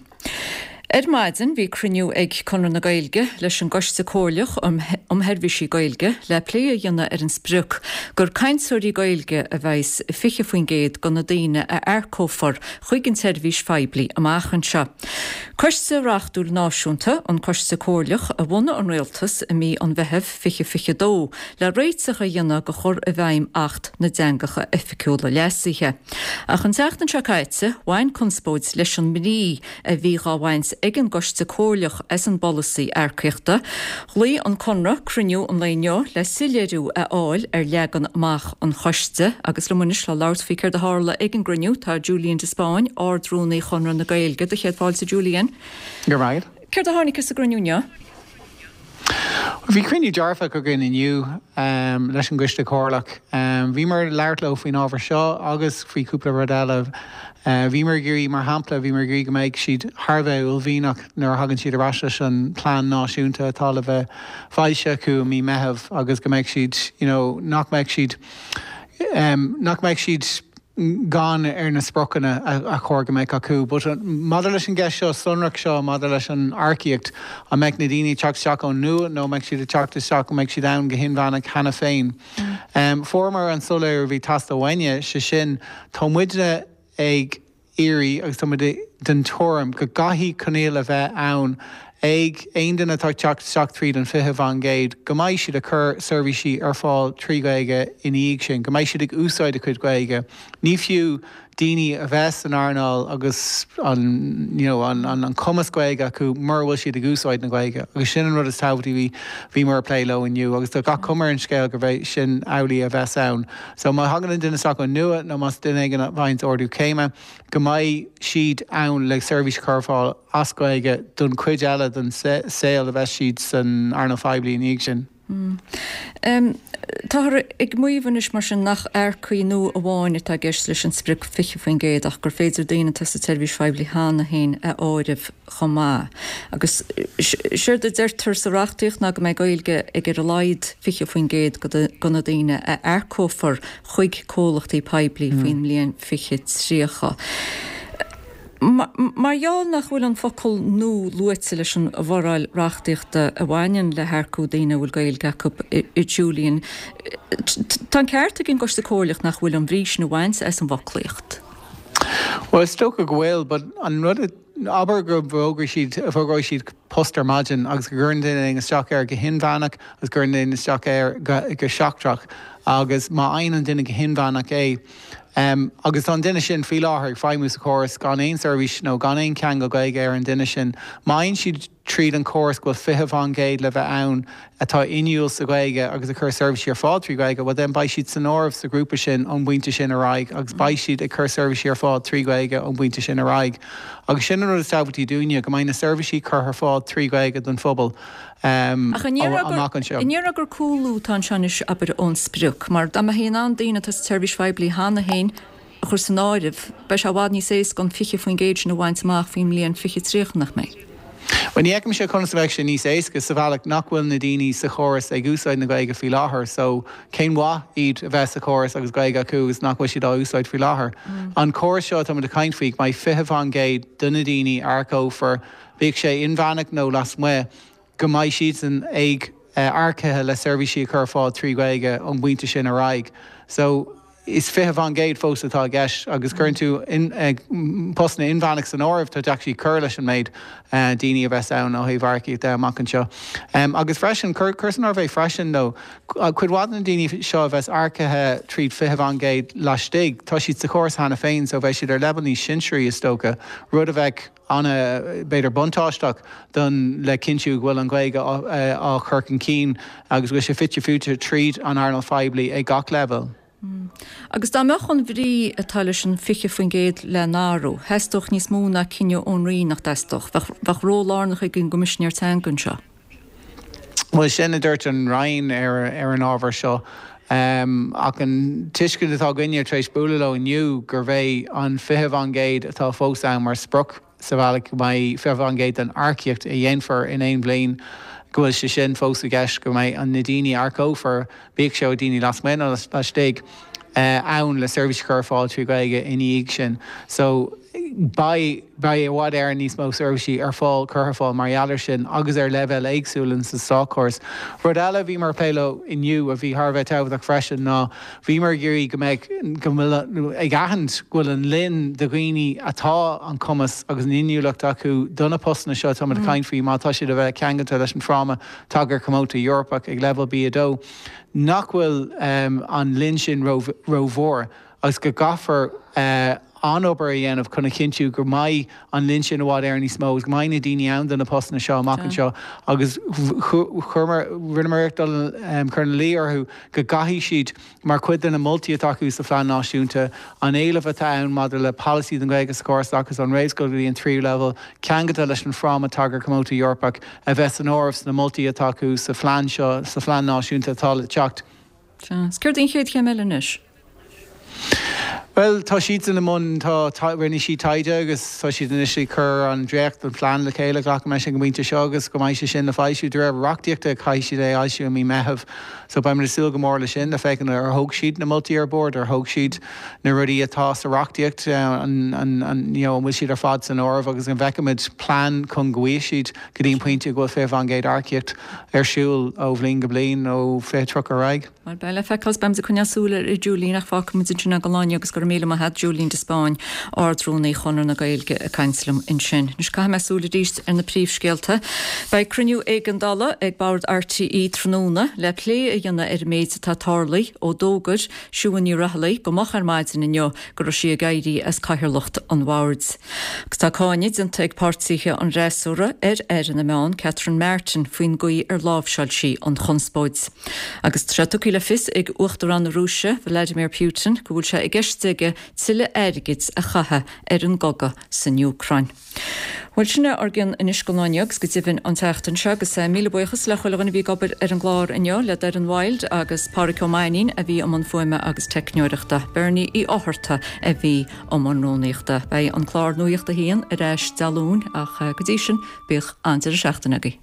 Ar maidin bhí cruinniú ag Conradh na Gaeilge leis an gCoiste Comhairleach um Sheirbhísí Gaeilge le plé a dhéanamh ar an sprioc gur cainteoirí Gaeilge a bheas i 20% de na daoine a earcófar chuig an tseirbhís phoiblí amach anseo. Coiste reachtúil náisiúnta, an Coiste Comhairleach, a bhunaigh an Rialtas i mí an Mheithimh 2022 le réiteach a dhéanamh do chur i bhfeidhm Acht na dTeangacha Oifigiúla Leasaithe. Ach an tseachtain seo caite, bhain conspóid leis an mbrí a bhí dhá bhaint ag an gCoiste Comhairleach as an bpolasaí earcaíochta. Ghlaoigh an Conradh cruinniú an lae inniu le soiléiriú a fháil ar leagan amach an choiste agus liom anois le labhairt faoi céard a tharla ag an gcruinniú tá Julian de Spáinn, Ard-Rúnaí Chonradh na Gaeilge. Do chéad fáilte Julian. Go raibh maith agat. Céard a tháinig as an gcruinniú inniu? Bhí cruinniú dearfach againn inniu leis an gCoiste Comhairleach. Bhíomar ag labhairt leo faoin ábhar seo agus faoi chúpla rud eile. Bhíomar ag iarraidh, mar shampla, bhíomar ag iarraidh go mbeidh siad thar a bheith uaillmhianach nuair a thagann siad ar ais leis an plean náisiúnta atá le bheith foilsithe acu i mí Meitheamh agus go mbeidh siad, you know, nach mbeidh siad, nach mbeidh siad, gann ar na spriocanna a chóir go mbeadh acu. But maidir leis an gceist seo sonrach seo maidir leis an earcaíocht, an mbeidh na daoine ag teacht isteach ón nua nó an mbeidh siad ag teacht isteach, an mbeidh siad ann go hinmheánach cheana féin? Fuaireamar an soiléiriú a bhí ag teastáil uainne, sé sin, tá muidne ag iarraidh agus tá muid den tuairim go gcaithfidh coinníoll a bheith ann ag aon duine atá ag teacht isteach tríd an 20% go mbeidh siad ag cur seirbhísí ar fáil trí Ghaeilge ina dhiaidh sin, go mbeidh siad ag úsáid a cuid Gaeilge. Ní fiú. daoine a bheith san earnáil agus an you know an an cumas Gaeilge acu mura bhfuil siad ag úsáid na Gaeilge agus sin an rud is tábhachtaí a bhí bhíomar ag plé leo inniu agus tá gach cuma ar an scéal gurb é sin amhlaidh a bheas ann. So má thagann an duine isteach ó nua nó más duine éigin a bhfaigheanns ardú céime go mbeidh siad ann le seirbhís a chur ar fáil as Gaeilge don chuid eile den saol a bheas siad san earnáil phoiblí ina dhiaidh sin. Táthar ag maíomh anois mar sin nach earcaigh nua amháin atá i gceist leis an sprioc 20% ach gur féidir daoine atá sa tseirbhís phoiblí cheana féin a áireamh chomh maith. Agus séard a deirtear sa reachtaíocht ná go mbeidh Gaeilge ag ar a laghad 20% de na daoine a earcófar chuig comhlachtaí poiblí faoin mbliain 2030. Mar gheall nach bhfuil an focal 'nó' luaite leis an bhforáil reachtaíochta a bhaineann le hearcú daoine a bhfuil Gaeilge acu, a Julian, tá an ceart ag an gCoiste Comhairleach nach bhfuil an bhrí sin a bhaint as an bhfoclaíocht. Bhuel, is dócha go bhfuil, but an rud a, abair go bhfógróidh siad, fógróidh siad post ar maidin agus go gcuireann duine éigin isteach air go hinmheánach agus go gcuireann duine isteach air go, go seachtrach agus má fhaigheann an duine go hinmheánach é, Agus tá an duine sin faoi láthair ag feidhmiú sa chóras gan aon seirbhís nó gan aon cheangal Gaeilge ar an duine sin. Má fhaigheann siad tríd an chóras go bhfuil 20% le bheith ann atá inniúil sa Ghaeilge agus ag cur seirbhísí ar fáil trí Ghaeilge, well then beidh siad san áireamh sa ghrúpa sin ón bpointe sin ar aghaidh agus beidh siad ag cur seirbhísí ar fáil trí Ghaeilge ón bpointe sin ar aghaidh. Agus sin an rud is tábhachtaí dúinne, go mbeidh na seirbhísí curtha ar fáil trí Ghaeilge don phobal. Ach an ndéarfá gur cúlú atá anseo anois, abair, ón sprioc? Mar dá mbeifí in ann daoine atá sa tseirbhís phoiblí cheana féin a chur san áireamh, beidh sé i bhfad níos éasca an 20% sin a bhaint amach faoin mbliain 2030, nach mbeidh? Bhuel, ní fheicimse conas a bheadh sé níos éasca, sa bhealach nach bhfuil na daoine sa chóras ag úsáid na Gaeilge faoi láthair. So, cén mhaith iad a bheith sa chóras agus Gaeilge acu agus nach bhfuil siad á úsáid faoi láthair? An córas seo atáimid ag caint faoi, go mbeidh 20% de na daoine a earcófar, bíodh sé inmheánach nó lasmuigh, go mbeidh siadsan ag earcaithe le seirbhísí a chur ar fáil trí Ghaeilge ón bpointe sin ar aghaidh. So, is 20% fós atá i gceist agus cuireann tú postanna inmheánach san áireamh, tá actually cur leis an méid daoine a bheas ann ó thaobh earcaíocht de amach anseo. Agus freisin, cuir san áireamh é freisin though, cuid mhaith de na daoine seo a bheas earcaithe tríd 20% laistigh, tá siad sa chóras cheana féin so beidh siad ar leibhéal níos sinsearaí is dócha, rud a bheadh ana, b'fhéidir buntáisteach don le cinntiú go bhfuil an Ghaeilge á chur chun cinn agus go bhfuil sé fite fuaite tríd an earnáil phoiblí ag gach leibhéal. Agus dá mbeadh an bhrí atá leis an 20% le n-athrú, theastódh níos mó ná cinneadh ón Roinn, nach dteastódh? Bheadh ról lárnach ag an gCoimisinéir Teanga anseo. Bhuel, sin a dúirt an Roinn ar an ábhar seo. Ach an tuiscint atá againne tar éis bualadh leo inniu gurb é an 20% atá fós ann mar sprioc sa bhealach go mbeidh 20% den earcaíocht a dhéanfar in aon bhliain, go bhfuil sé sin fós i gceist, go mbeidh na daoine a earcófar, bíodh sé ó daoine lasmuigh nó laistigh, ann le seirbhís a chur ar fáil trí Ghaeilge ina dhiaidh sin. So, beidh, beidh i bhfad Éireann níos mó seirbhísí ar fáil, curtha ar fáil mar gheall air sin agus ar leibhéil éagsúla in sa státchóras. Rud eile a bhíomar ag plé leo inniu a bhí thar a bheith tábhachtach freisin ná bhíomar ag iarraidh go mbeadh, go bhfuil, ag aithint go bhfuil an líon de dhaoine atá an cumas agus an inniúlacht acu do na postanna seo atáimid ag caint faoi má tá siad a bheith ceangailte leis an bhFráma Tagartha Cuóta Eorpach ag leibhéal B2, nach bhfuil an líon sin rómhór agus go gcaithfear an-obair a dhéanamh chun a chinntiú go mbeidh an líon sin i bhfad Éireann níos mó agus go mbeidh na daoine ann do na postanna seo amach anseo agus chuireamar, rinneamar iarracht dul cur ina luí orthu go gcaithfidh siad Mar chuid de na moltaí atá acu sa Phlean Náisiúnta, an éileamh atá ann maidir le polasaí don Ghaeilge sa chóras oideachais ón réamhscoil go dtí an tríú leibhéal, ceangailte leis an Fhráma Tagartha Cuóta Eorpach, a bheith san áireamh sna moltaí atá acu sa phlean seo, sa Phlean Náisiúnta atá le teacht. Sea. Is céard í an chéad chéim eile anois? Bhuel, tá siadsan i mbun, tá, rinne siad taighde agus tá siad anois ag cur an dréacht den phlean le chéile, glacaim leis ag an bpointe seo agus go mbeidh sé sin le foilsiú. De réir reachtaíochta caithfidh siad é a fhoilsiú i mí Meitheamh so beimid ag súil go mór leis sin le féachaint ar thóg siad na moltaí ar bord, ar thóg siad na rudaí atá sa reachtaíocht, an, an, an, you know, an bhfuil siad ar fad san áireamh agus an bhfeicfimid plean chun go bhfaighidh siad go dtí an pointe go bhfuil 20% earcaíocht ar siúl ó bhliain go bliain ó 2030 ar aghaidh. Bhuel, beidh le feiceáil is beimid ag coinneáil súil air a Julian ach fágfaimid ansin é don lá inniu agus go raibh. raibh míle maith a't, Julian de Spáinn, Ard-Rúnaí Chonradh na Gaeilge ag caint liom ansin. Anois caithfidh mé súil arís ar na príomhscéalta. Beidh cruinniú éigeandála ag Bord RTÉ tráthnóna le plé a dhéanamh ar an méid atá tarlaithe ó d'fhógair Siún Ní Raghallaigh go moch ar maidin inniu go raibh sí ag éirí as cathaoirleacht an bhoird. Agus tá cáineadh déanta ag páirtithe an fhreasúra ar Aire na Meán, Catherine Martin, faoin gcaoi ar láimhseáil sí an chonspóid. Agus tá sé tugtha le fios ag Uachtarán na Rúise, Vladimir Putin, go bhfuil sé i gceist aige tuilleadh airgid a chaitheamh ar an gcogadh san Úcráin. Bhuel, sin é ár gcion anois don lá inniu agus go deimhin an tseachtain seo agus míle buíochas le chuile dhuine a bhí ag obair ar an gclár inniu, le Doireann Wilde agus Pádhraic Ó Mainnín a bhí i mbun fuaime agus teicneoireachta, Bernie Uí Fhátharta a bhí i mbun rúnaíochta. Beidh an clár Nuacht a hAon ar ais Dé Luain ach go dtí sin, bíodh an-deireadh seachtaine agaibh.